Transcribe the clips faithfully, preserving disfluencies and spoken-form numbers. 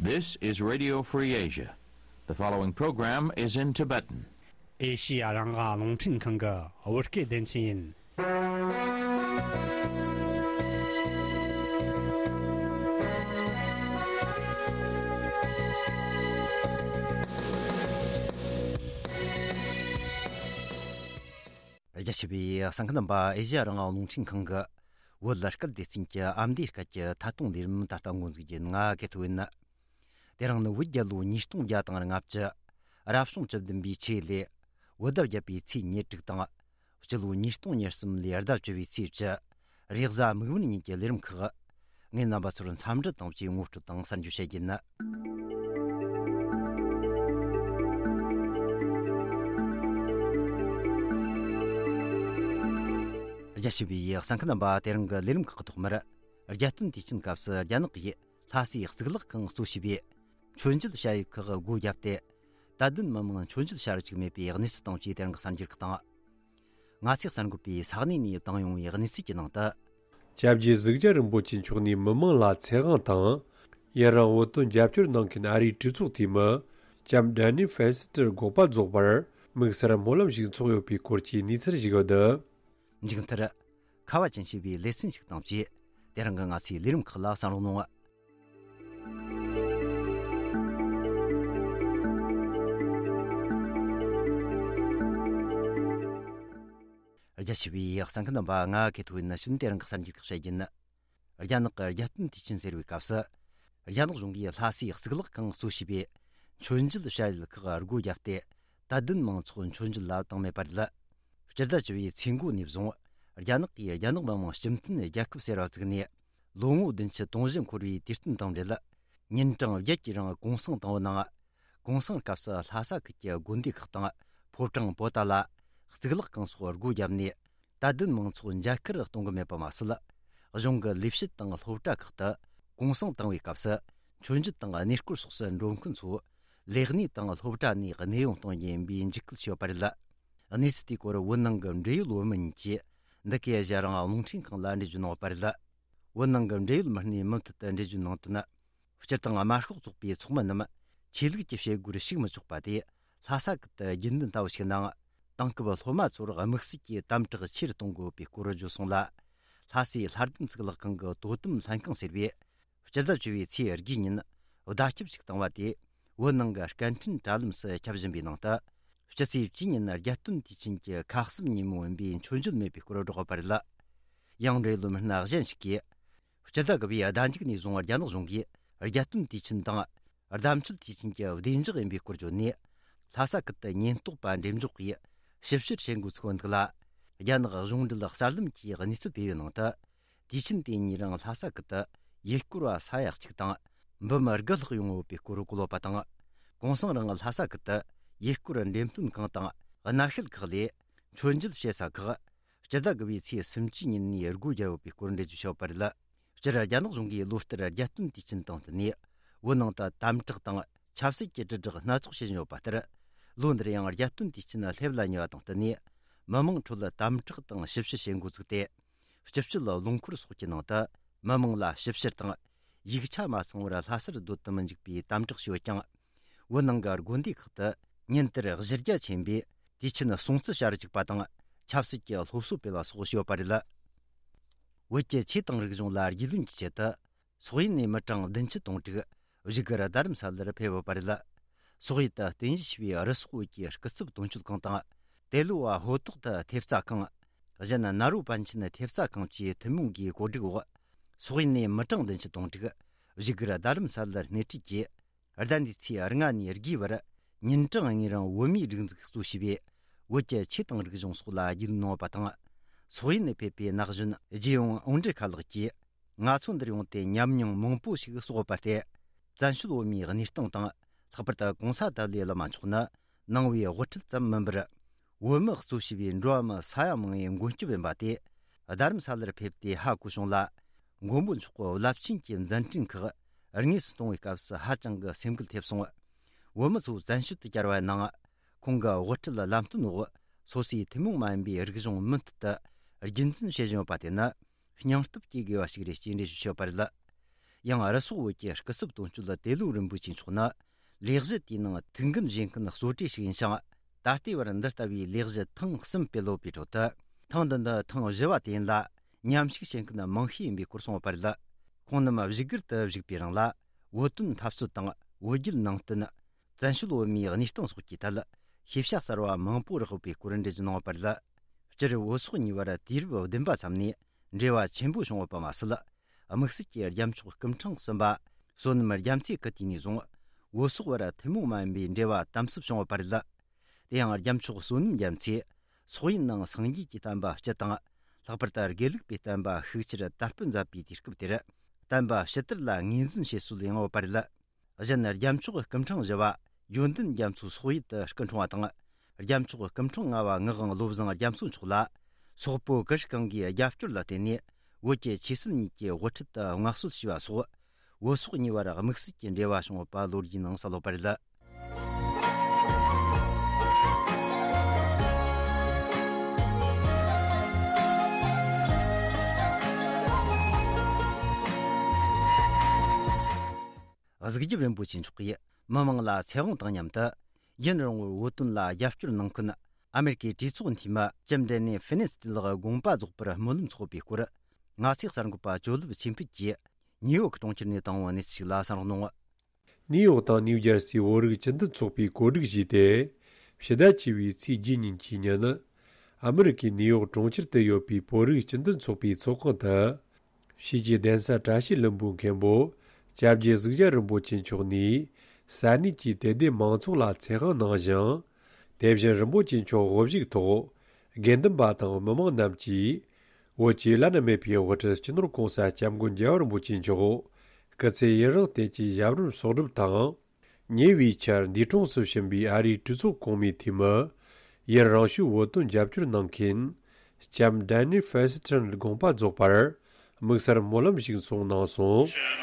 This is Radio Free Asia. The following program is in Tibetan. ཨེ་ཤི་ཡ་རང་དབང་རླུང་འཕྲིན་ཁང་གི་བོད་སྐད་སྡེ་ཚན་ཡིན། རྒྱ་ཆེ་བའི་གསན་མཁན་རྣམ་པ། ཨེ་ཤི་ཡ་རང་དབང་རླུང་འཕྲིན་ཁང་གི་བོད་སྐད་སྡེ་ཚན་གྱི་ཨ་མདོའི་སྐད་ཀྱི་ཐད་གཏོང་ལས་རིམ་ད་ལྟ་འགོ་འཛུགས་རྒྱུ་ཡིན། ང་གི་ཐུགས་ཡིན། དེ་རིང་ནི་བོད་རྒྱལ་ལོ་ཉིས་སྟོང་བརྒྱ་དང་ལྔ་བཅུ། རབ་བྱུང་བཅུ་བདུན་པའི་ཆེས་ལས། བོད་ཟླ་བརྒྱད་པའི་ཚེས་ཉེར་དྲུག་དང་། སྤྱི་ལོ་ཉིས་སྟོང་ཉེར་གསུམ་ལོའི་ཟླ་བཅུ་བའི་ཚེས་བཅུ། རེས་གཟའ་མིག་དམར་ཉིན་གྱི་ལས་རིམ་ཁག། ངས་རྣམ་པ་ཚོར་འཚམས་འདྲི་དང་བཅས་ངོ་སྤྲོད་དང་གསར་འགྱུར་བཤད་རྒྱུ་ཡིན། རྒྱ་ཆེ་བའི་གསན་མཁན་རྣམ་པ། དེ་རིང་གི་ལས་རིམ་ཁག་གི་ཐོག་མར། རྒྱལ་སྟོན་དུས་ཆེན་སྐབས་སུ་རྒྱ་ནག་གིས་ལྷ་སའི་གཙུག་ལག་ཁང་གཙོ་བྱས་པའི་མཆོད་མཇལ་བྱ་ཡུལ་ཁག་སྒོ་བརྒྱབ་སྟེ། དད་ལྡན་མི་མང་མཆོད་མཇལ་བྱ་རུ་བཅུག་མེད་པའི་གནས་ཚུལ་དང་བཅས་དེ་རིང་གི་གསར་འགྱུར་ཁག་དང་། ང་ཚོས་གསར་འགོད་པས་ས་གནས་ནས་བཏང་ཡོང་བའི་གནས་ཚུལ་གྱི་ནང་དུ། སྐྱབས་རྗེ་གཟུགས་ཅན་རིན་པོ་ཆེ་མཆོག་ནས་མི་མང་ལ་ཚེ་དབང་དང་། ཡུན་རིང་བོད་དོན་རྒྱབ་སྐྱོར་གནང་མཁན་ཨ་རིའི་གྲོས་ཚོགས་འཐུས་མི་ལྕམ་ཌན་ནི་ཧྥེན་སི་ཏར་དགོངས་པ་རྫོགས་པར་དམིགས་བསལ་སྨོན་ལམ་ཞིག་འཚོགས་ཡོད་པའི་སྐོར་གྱི་གནས་ཚུལ་ཞིག་ཡོད། མཇུག་མཐར། ཁ་བ་ཅན་ཞེས་པའི་ལེ་ཚན་ཞིག་དང་བཅས། དེ་རིང་གི་ང་ཚོའི་ལས་རིམ་ཁག་ལ་གསན་རོགས་གནང་། རྒྱ་ཆེ་བའི་གསན་མཁན་རྣམ་པ། ང་གི་ཐུགས་ཡིན་ན་ཤུན་དེ་རིང་གི་གསར་འགྱུར་ཁག་བཤད་རྒྱུ་ཡིན། རྒྱ་ནག་གི་རྒྱལ་སྟོན་དུས་ཆེན་ཟེར་བའི་སྐབས་སུ། རྒྱ་ནག་གཞུང་གིས་ལྷ་སའི་གཙུག་ལག་ཁང་གཙོ་བྱས་པའི་མཆོད་མཇལ་བྱ་ཡུལ་ཁག་སྒོ་བརྒྱབ་སྟེ། དད་ལྡན་མང་ཚོགས་མཆོད་མཇལ་ལ་བཏང་མེད་པ་རེད། སྤྱི་ཟླ་བཅུ་བའི་ཚེས་འགོ་ནས་བཟུང་། རྒྱ་ནག་གིས་རྒྱ་ནག་མི་དམངས་སྤྱི་མཐུན་རྒྱལ་ཁབ་ཟེར་བ་བཙུགས་ནས། ལོ་ངོ་བདུན་ཅུ་དོན་བཞི་འཁོར་བའི་དུས་སྟོན་དང་འབྲེལ། ཉིན་གྲངས་བརྒྱད་ཀྱི་རིང་གུང་སེང་བཏང་བའི་ནང་། གུང་སེང་སྐབས་སུ་ལྷ་ས་ཁུལ་གྱི་དགོན་སྡེ་ཁག་དང་ཕོ་བྲང་པོ་ཏཱ་ལ། གཙུག་ལག་ཁང་སོགས་སྒོ་བརྒྱབ་ནས། དད་ལྡན་མང་ཚོགས་མཇལ་ཁར་གཏོང་གི་མེད་པ་མ་ཟད། གཞུང་གི་ལས་བྱེད་དང་སློབ་གྲྭ་ཁག་ཏུ་གུང་སེང་བཏང་བའི་སྐབས་སུ། མཆོད་མཇལ་དང་གནས་སྐོར་སོགས་སུ་འགྲོ་མཁན་ཚོ་ལས་གནས་དང་སློབ་གྲྭ་ནས་གནས་དབྱུང་གཏོང་རྒྱུ་ཡིན་པའི་འཇིགས་སྐུལ་བྱས་ཡོད་པ་རེད། གནས་ཚུལ་དེའི་སྐོར་བོད་ནང་གི་འབྲེལ་ཡོད་བོད་མི་གཉིས་ཀྱིས་འདི་གའི་ཨེ་ཤ་ཡ་རང་དབང་རླུང་འཕྲིན་ཁང་ལ་འགྲེལ་བརྗོད་གནང་ཡོད་པ་རེད། བོད་ནང་གི་འབྲེལ་ཡོད་མི་སྣས་མུ་མཐུད་དུ་འགྲེལ་བརྗོད་གནང་དོན། སྤྱིར་བཏང་དམར་ཤོག་ཚོགས་པའི་ཚོགས་མི་རྣམས་ཆོས་ལུགས་ཀྱི་བྱེད་སྒོར་ཞུགས་མི་ཆོག་པ་དེ། ལྷ་ས་ཁུལ་དུ་རྒྱུན་ལྡན་ལྟ་བུ་ཞིག་ནང་། དེང་སྐབས་སློབ་མ་ཚོར་དམིགས་བསལ་གྱི་དམ་དྲག་ཆེ་རུ་གཏོང་དགོས་པའི་སྐོར་བརྗོད་སོང་ལ། ལྷ་སའི་ལྷ་ལྡན་གཙུག་ལག་ཁང་གི་དོ་དམ་ལྷན་ཁང་ཟེར་བས། སྤྱི་ཟླ་བཅུ་བའི་ཚེས་དགུའི་ཉིན་བརྡ་ཁྱབ་ཞིག་བཏང་བ་དེ། བོད་ནང་གི་སྐད་འཕྲིན་དྲ་ལམ་སུ་ཁྱབ་བཞིན་པའི་ནང་དུ། སྤྱི་ཚེས་བཅུའི་ཉིན་རྒྱལ་སྟོན་དུས་ཆེན་གྱི་ཁ་གསབ་ཉིན་མོ་ཡིན་པའི་མཆོད་མཇལ་མེད་པའི་སྐོར་བསྒྲགས་པ་རེད། ཡང་འབྲེལ་ཡོད་མི་སྣ་གཞན་ཞིག་གིས། སྤྱི་ཟླ་དགུ་པའི་ཟླ་མཇུག་ནས་བཟུང་རྒྱ་ནག་གཞུང་གིས་རྒྱལ་སྟོན་དུས་ཆེན་དང་། ཟླ་མཆོད་དུས་ཆེན་གྱི་བདེ་འཇགས་ཡིན་པའི་སྐོར་བརྗོད་ནས། ལྷ་ས་ཁུལ་དུ་ཉེན་རྟོག་པ་འགྲེམས་འཇོག་གིས་ཞིབ་བཤེར་བྱེད་འགོ་ཚུགས་པ་འདུག་ལ། རྒྱ་ནག་གཞུང་འབྲེལ་གསར་ལམ་གྱིས་གནས་ཚུལ་སྤེལ་བའི་ནང་དུ། དུས་ཆེན་དེ་ཉིན་རིང་ལྷ་ས་ཁུལ་དུ་ཡུལ་སྐོར་བ་ས་ཡ་གཅིག་དང་། འབུམ་དགུ་ལྷག་ཡོང་ཡོད་པའི་སྐོར་བཀོད་ཡོད་པ་དང་། གུང་སེང་རིང་ལྷ་ས་ཁུལ་དུ་ཡུལ་སྐོར་འགྲེམས་སྟོན་ཁང་དང་། སྣ་ཤལ་ཁག་ལས་མཆོད་མཇལ་བྱེད་ས་ཁག་སྤྱི་ཟླ་དགུ་པའི་ཚེས་སུམ་ཅུའི་ཉིན་ནས་སྒོ་བརྒྱབ་ཡོད་པའི་སྐོར་འགྲེལ་བརྗོད་བྱས་ཡོད་པ་རེད། སྤྱིར་རྒྱ་ནག་གཞུང་གིས་ལོ་ལྟར་རྒྱལ་སྟོན་དུས་ཆེན་དང་བསྟུན་ནས། བོད་ནང་དུ་དམ་དྲག་དང་ཆབ་སྲིད་ཀྱི་དྲིལ་བསྒྲགས་སྣ་ཚོགས་བྱེད་བཞིན་ཡོད་པ་ལྟར། ལོ་འདིར་ཡང་རྒྱལ་སྟོན་དུས་ཆེན་སླེབས་ལ་ཉེ་བ་དང་བསྟུན་ནས། མི་མང་ཁྲོད་དམ་དྲག་དང་ཞིབ་བཤེར་བྱེད་འགོ་བཙུགས་ཏེ། སྤྱི་སྤྱོད་རླངས་འཁོར་སོགས་ཀྱི་ནང་དུ་མི་མང་ལ་ཞིབ་བཤེར་དང་། ཡིག་ཆ་མ་ཚང་བར་ལྷ་སར་སྡོད་དུ་མི་འཇུག་པའི་དམ་དྲག་བྱས་ཡོད་ཀྱང་། བོད་ནང་གི་དགོན་སྡེ་ཁག་ཏུ་ཉིན་ལྟར་གཞི་རྒྱ་ཆེན་པོས་དུས་ཆེན་སྲུང་བརྩི་བྱ་རུ་བཅུག་པ་དང་། ཆབ་སྲིད་ཀྱི་སློབ་གསོ་སྤེལ་བ་སོགས་བྱས་ཡོད་པ་རེད། བོད་ཀྱི་ཆོས་དང་རིག་གཞུང་ལ་རྒྱུས་ལོན་གྱི་ཆེད་དུ། སོག་ཡུལ་ནས་མི་གྲངས་བདུན་ཅུ་དོན་དྲུག་བཞུགས་སྒར་རྡ་རམ་ས་ལར་ཕེབས་ཡོད་པ་རེད། སོག་ཡུལ་དུ་རྟེན་གཞི་བྱས་པའི་རི་སོག་བོད་ཀྱི་སྐུ་ཚབ་དོན་གཅོད་ཁང་དང་། ཏེ་ལོ་བ་ཧོ་ཏོག་ཏུ་ཐེབས་རྩ་ཁང་། གཞན་ན་རོ་པན་ཆེན་ཐེབས་རྩ་ཁང་བཅས་ཐུན་མོང་གིས་གོ་སྒྲིག་འོག་སོག་ཡུལ་ནས་མི་གྲངས་བདུན་ཅུ་དོན་དྲུག་བཞུགས་སྒར་རྡ་རམ་ས་ལར་སྣེ་ཁྲིད་ཀྱིས། ཟླ་འདིའི་ཚེས་ལྔ་ནས་དགུའི་བར་ཉིན་གྲངས་ལྔའི་རིང་བོད་མིའི་སྒྲིག་འཛུགས་གཙོ་བྱས་པའི་བོད་ཀྱི་ཆོས་དང་རིག་གཞུང་སོགས་ལ་རྒྱུས་ལོན་གནང་བ་དང་། སོག་ཡུལ་ནས་ཕེབས་པའི་ན་གཞོན་རྗེ་ཡོང་ཨོང་ཀྲི་ཁ་ལགས་ཀྱིས། ང་ཚོ་འདིར་ཡོང་སྟེ་ཉམས་མྱོང་མང་པོ་ཞིག་གསོག་པར་བརྟེན། བཙན་བྱོལ་བོད་མིའི་གནས་སྟངས་དང་། ལྷག་པར་དུ་གོང་ས་ཏཱ་ལའི་བླ་མ་མཆོག་ནི་ནང་པའི་དབུ་ཁྲིད་ཙམ་མིན་པར། བོད་མི་གཙོ་བྱས་པའི་འགྲོ་བ་མི་ས་ཡ་མང་བོའི་མགོན་སྐྱབས་ཡིན་པ་དེ། རྡ་རམ་ས་ལར་ཕེབས་ཏེ་ཧ་གོ་བྱུང་ལ། མགོན་པོ་མཆོག་གི་རླབས་ཆེན་གྱི་མཛད་འཕྲིན་ཁག་དངོས་སུ་མཐོང་བའི་སྐབས་སུ་ཧ་ཅང་གི་སེམས་འགུལ་ཐེབས་སོང་། བོད་མི་ཚོ་བཙན་བྱོལ་དུ་བཅར་བའི་ནང་། ཁོང་གི་དབུ་ཁྲིད་ལམ་སྟོན་འོག་སོ་སོའི་ཐུན་མོང་མ་ཡིན་པའི་རིག་གཞུང་མུ་མཐུད་དུ་རྒྱུན་འཛིན་བྱེད་བཞིན་ཡོད་པ་དེ་ནི། སྙིང་སྟོབས་སྐྱེ་དགོས་པ་ཞིག་རེད་ཅེས་འགྲེལ་བརྗོད་བྱས་པ་རེད། ཡང་རུ་སོག་བོད་ཀྱི་སྐུ་ཚབ་དོན་གཅོད་ཏེ་ལོ་རིན་པོ་ཆེ་མཆོག་ནི། ལས་གཞི་དེའི་ནང་ཐུགས་འགན་བཞེས་མཁན་གཙོ་གྲས་ཤིག་ཡིན་ཞིང་། ད་ལྟའི་བར་འདི་ལྟ་བུའི་ལས་གཞི་ཐེངས་གསུམ་སྤེལ་ཡོད་པའི་ཁྲོད་དུ། ཐེངས་འདི་ནི་ཐེངས་བཞི་བ་དེ་ཡིན་ལ། མཉམ་ཞུགས་བྱེད་མཁན་མང་ཤོས་ཡིན་པའི་སྐོར་གསུངས་པ་རེད། ཁོང་རྣམས་བཞུགས་སྒར་དུ་བཞུགས་པའི་རིང་ལ། བོད་དོན་འཐབ་རྩོད་དང་བོད་བརྒྱུད་ནང་བསྟན། བཙན་བྱོལ་བོད་མིའི་གནས་སྟངས་སོགས་ཀྱི་ཐད། ཤེས་བྱ་གསར་བ་མང་པོ་རག་ཡོད་པའི་སྐོར་འགྲེལ་བརྗོད་གནང་ཡོད་པ་རེད། སྤྱིར་བོད་སོག་གཉིས་བར་དུས་རབས་བདུན་པ་ཙམ་ནས་འབྲེལ་བ་ཆེན་པོ་བྱུང་ཡོད་པ་མ་ཟད། དམིགས་བསལ་གྱི་རྒྱལ་མཆོག་སྐུ་ཕྲེང་གསུམ་པ་བསོད་ནམས་རྒྱ་མཚོས་སྐུ་དུས་ནས་བཟུང་བོད་སོག་བར་ཐུན་མོང་མ་ཡིན་པའི་འབྲེལ་བ་དམ་ཟབ་བྱུང་ཡོད་པ་རེད། དེ་ཡང་རྒྱལ་མཆོག་བསོད་ནམས་རྒྱ་མཚོས་སོག་ཡུལ་ནང་སངས་རྒྱས་ཀྱི་བསྟན་པ་སྤྱི་དང་། ལྷག་པར་དུ་དགེ་ལུགས་པའི་བསྟན་པ་ཤུགས་ཆེར་དར་སྤེལ་མཛད་པའི་དུས་སྐབས་དེར། བསྟན་པ་ཕྱི་དར་ལ་ངོས་འཛིན་བྱེད་སྲོལ་ཡང་ཡོད་པ་རེད། གཞན་རྒྱལ་མཆོག་སྐུ་ཕྲེང་བཞི་པ་ཡོན་ཏན་རྒྱ་མཚོ་སོག་ཡུལ་དུ་སྐུ་འཁྲུངས་པ་དང་། རྒྱལ་མཆོག་སྐུ་ཕྲེང་ལྔ་པ་ངག་དབང་བློ་བཟང་རྒྱ་མཚོ་མཆོག་ལ། སོག་པོ་གུ་ཤྲི་གང་གིས་རྒྱབ་སྐྱོར་ལ་བརྟེན་ནས། བོད་ཀྱི་ཆོས་སྲིད་གཉིས་ཀྱི་དབུ་ཁྲིད་དུ་མངའ་གསོལ་ཞུས་པ་སོགས། བོད་སོག་གཉིས་བར་དམིགས་བསལ་གྱི་འབྲེལ་བ་བྱུང་ཡོད་པ་ལོ་རྒྱུས་ནང་གསལ་ཡོད་པ་རེད། གཟིགས་རྒྱབ་རིན་པོ་ཆེ་མཆོག་གིས་མི་མང་ལ་ཚེ་དབང་དང་མཉམ་དུ། ཡུན་རིང་བོར་བོད་དོན་ལ་རྒྱབ་སྐྱོར་གནང་མཁན་ཨ་མེ་རི་ཀའི་གྲོས་ཚོགས་འཐུས་མི་ཇིམ་ཌེ་ནི་ཕི་ནེ་སི་ཊི་ལགས་དགོངས་པ་རྫོགས་པར་སྨོན་ལམ་ཚོགས་པའི་སྐོར། ང་ཚོའི་གསར་འགོད་པ་ཇོ་ལེབ་ཆོས་འཕེལ་གྱིས་ནིའུ་ཡོག་གྲོང་ཁྱེར་ནས་བཏང་བའི་གནས་ཚུལ་ཞིག་ལ་གསན་རོགས་གནང་། ནིའུ་ཡོག་དང་ནིའུ་ཇར་སིའི་བོད་རིགས་སྤྱི་མཐུན་ཚོགས་པས་གོ་སྒྲིག་བྱས་ཏེ། ཕྱི་ཟླ་བཅུ་བའི་ཚེས་བརྒྱད་ཉིན་གྱི་ཉིན། ཨ་མེ་རི་ཀའི་ནིའུ་ཡོག་གྲོང་ཁྱེར་དུ་ཡོད་པའི་བོད་རིགས་སྤྱི་མཐུན་ཚོགས་པའི་ཚོགས་ཁང་དུ། ཕྱིས་ཀྱི་གདན་ས་བཀྲ་ཤིས་ལྷུན་པོའི་མཁན་པོ་སྐྱབས་རྗེ་གཟུགས་རྒྱལ་རིན་པོ་ཆེ་མཆོག་ནས་ས་གནས་ཀྱི་དད་ལྡན་མང་ཚོགས་ལ་ཚེ་དབང་གནང་ཞིང་། དེ་བཞིན་རིན་པོ་ཆེ་མཆོག་དབུ་བཞུགས་ཐོག་དགེ་འདུན་པ་དང་མི་མང་རྣམས་ཀྱིས་བོད་ཀྱི་བླ་ན་མེད་པའི་དབུ་ཁྲིད་སྤྱི་ནོར་༸གོང་ས་༸སྐྱབས་མགོན་རྒྱལ་བ་རིན་པོ་ཆེ་མཆོག་སྐུ་ཚེ་ཡུན་རིང་བརྟན་ཅིང་ཞབས་རིམ་གསོག་སྒྲུབ་དང་། ཉེ་བའི་ཆར་འདས་གྲོངས་སུ་ཕྱིན་པའི་ཨ་རིའི་གྲོས་ཚོགས་གོང་མའི་འཐུས་མི་ཡུན་རིང་ཤོས་བོད་དོན་རྒྱབ་སྐྱོར་གནང་མཁན་ལྕམ་ཌེ་ནི་ཕེ་སི་ཊོན་དགོངས་པ་རྫོགས་པར་དམིགས་བསལ་སྨོན་ལམ་ཞིག་གསུངས་གནང་སོང་།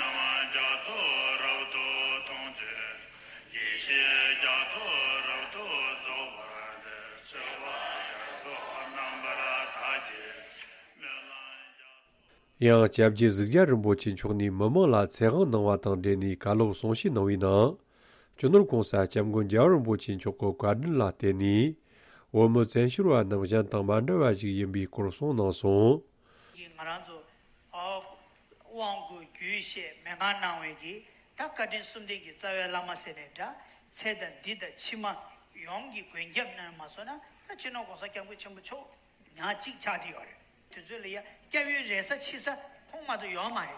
ཡང་སྐྱབས་རྗེ་གཟུགས་རྒྱལ་རིན་པོ་ཆེ་མཆོག་ནས་མི་མང་ལ་ཚེ་དབང་གནང་བ་དང་འབྲེལ་ནས་བཀའ་སློབ་གསུང་བཤད་གནང་བའི་ནང་། སྤྱི་ནོར་༸གོང་ས་༸སྐྱབས་མགོན་རྒྱལ་བ་རིན་པོ་ཆེ་མཆོག་གི་བཀའ་དྲིན་ལ་བརྟེན་ནས། བོད་མི་བཙན་བྱོལ་བ་རྣམས་གཞན་དང་མ་འདྲ་བ་ཞིག་ཡིན་པའི་སྐོར་གསུངས་གནང་སོང་། ང་རང་ཚོ་དབང་བསྐུར་རྒྱུད་བཤད་མན་ངག་གནང་བའི་གི་ད་བཀའ་དྲིན་གསུམ་ལྡན་གྱི་རྩ་བའི་བླ་མ་ཟེར་ནས་འདྲ། ཚེ་དང་འདི་དང་ཕྱི་མ་ཡོངས་ཀྱི་མགོན་སྐྱབས་གནང་མ་སོང་ན། ད་སྤྱི་ནོར་༸གོང་ས་༸སྐྱབས་མགོན་ཆེན་པོ་མཆོག་ཉག་གཅིག་ཆགས་ཀྱི་ཡོད་རེད། དུས་ཚོད་ལ་ཡ་སྐྱབས་ཡུལ་རེ་ས་ཕྱི་ས་ཁོང་མ་གཏོགས་ཡོད་མ་རེད།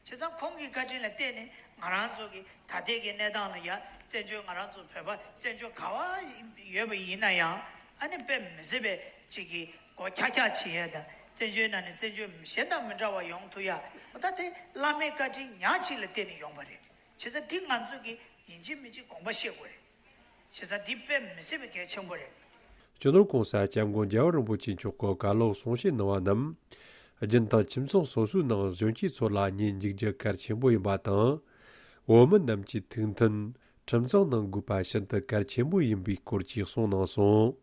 བྱས་ཙང་ཁོང་གི་བཀའ་དྲིན་ལ་བརྟེན་ནས་ང་རང་ཚོ་གི་ད་ལྟའི་གི་གནས་སྟངས་ལ་ཡ་བཙན་བྱོལ་ང་རང་ཚོ་བོད་པ་བཙན་བྱོལ་ག་བ་ཡོད་པ་ཡིན་ན་ཡང་ཨ་ནི་དཔེ་མི་སྲིད་པའི་ཅིག་གི་སྒོ་ཁྱག་ཁྱག་བྱེད་ཡ་དང་བཙན་བྱོལ་ནང་ནས་བཙན་བྱོལ་གཞན་དང་མི་འདྲ་བ་ཡོང་ཐུབ་ཡ། འོ་ད་དེ་བླ་མའི་བཀའ་དྲིན་ཉག་གཅིག་ལ་བརྟེན་ནས་ཡོང་བ་རེད། བྱས་ཙང་འདི་ང་ཚོ་གི་ཡིན་གཅིག་མིན་གཅིག་དགོངས་པ་བཞེས་དགོས་རེད། བྱས་ཙང་འདི་དཔེ་མི་སྲིད་པའི་གལ་ཆེན་པོ་རེད། སྤྱི་ནོར་༸གོང་ས་༸སྐྱབས་མགོན་རྒྱལ་བ་རིན་པོ་ཆེ་མཆོག་གི་བཀའ་སློབ་གསུང་བཤད་གནང་བ་རྣམས། རྒྱུན་དུ་ཁྱིམ་ཚང་སོ་སོའི་ནང་གཞོན་སྐྱེས་ཚོ་ལ་ཉན་འཇུག་རྒྱུ་གལ་ཆེན་པོ་ཡིན་པ་དང་། བོད་མི་རྣམས་ཀྱི་ཐུགས་མཐུན་ཁྲིམས་གཙང་གནང་དགོས་པ་ཤིན་ཏུ་གལ་ཆེན་པོ་ཡིན་པའི་སྐོར་བཅས་གསུངས་གནང་སོང་།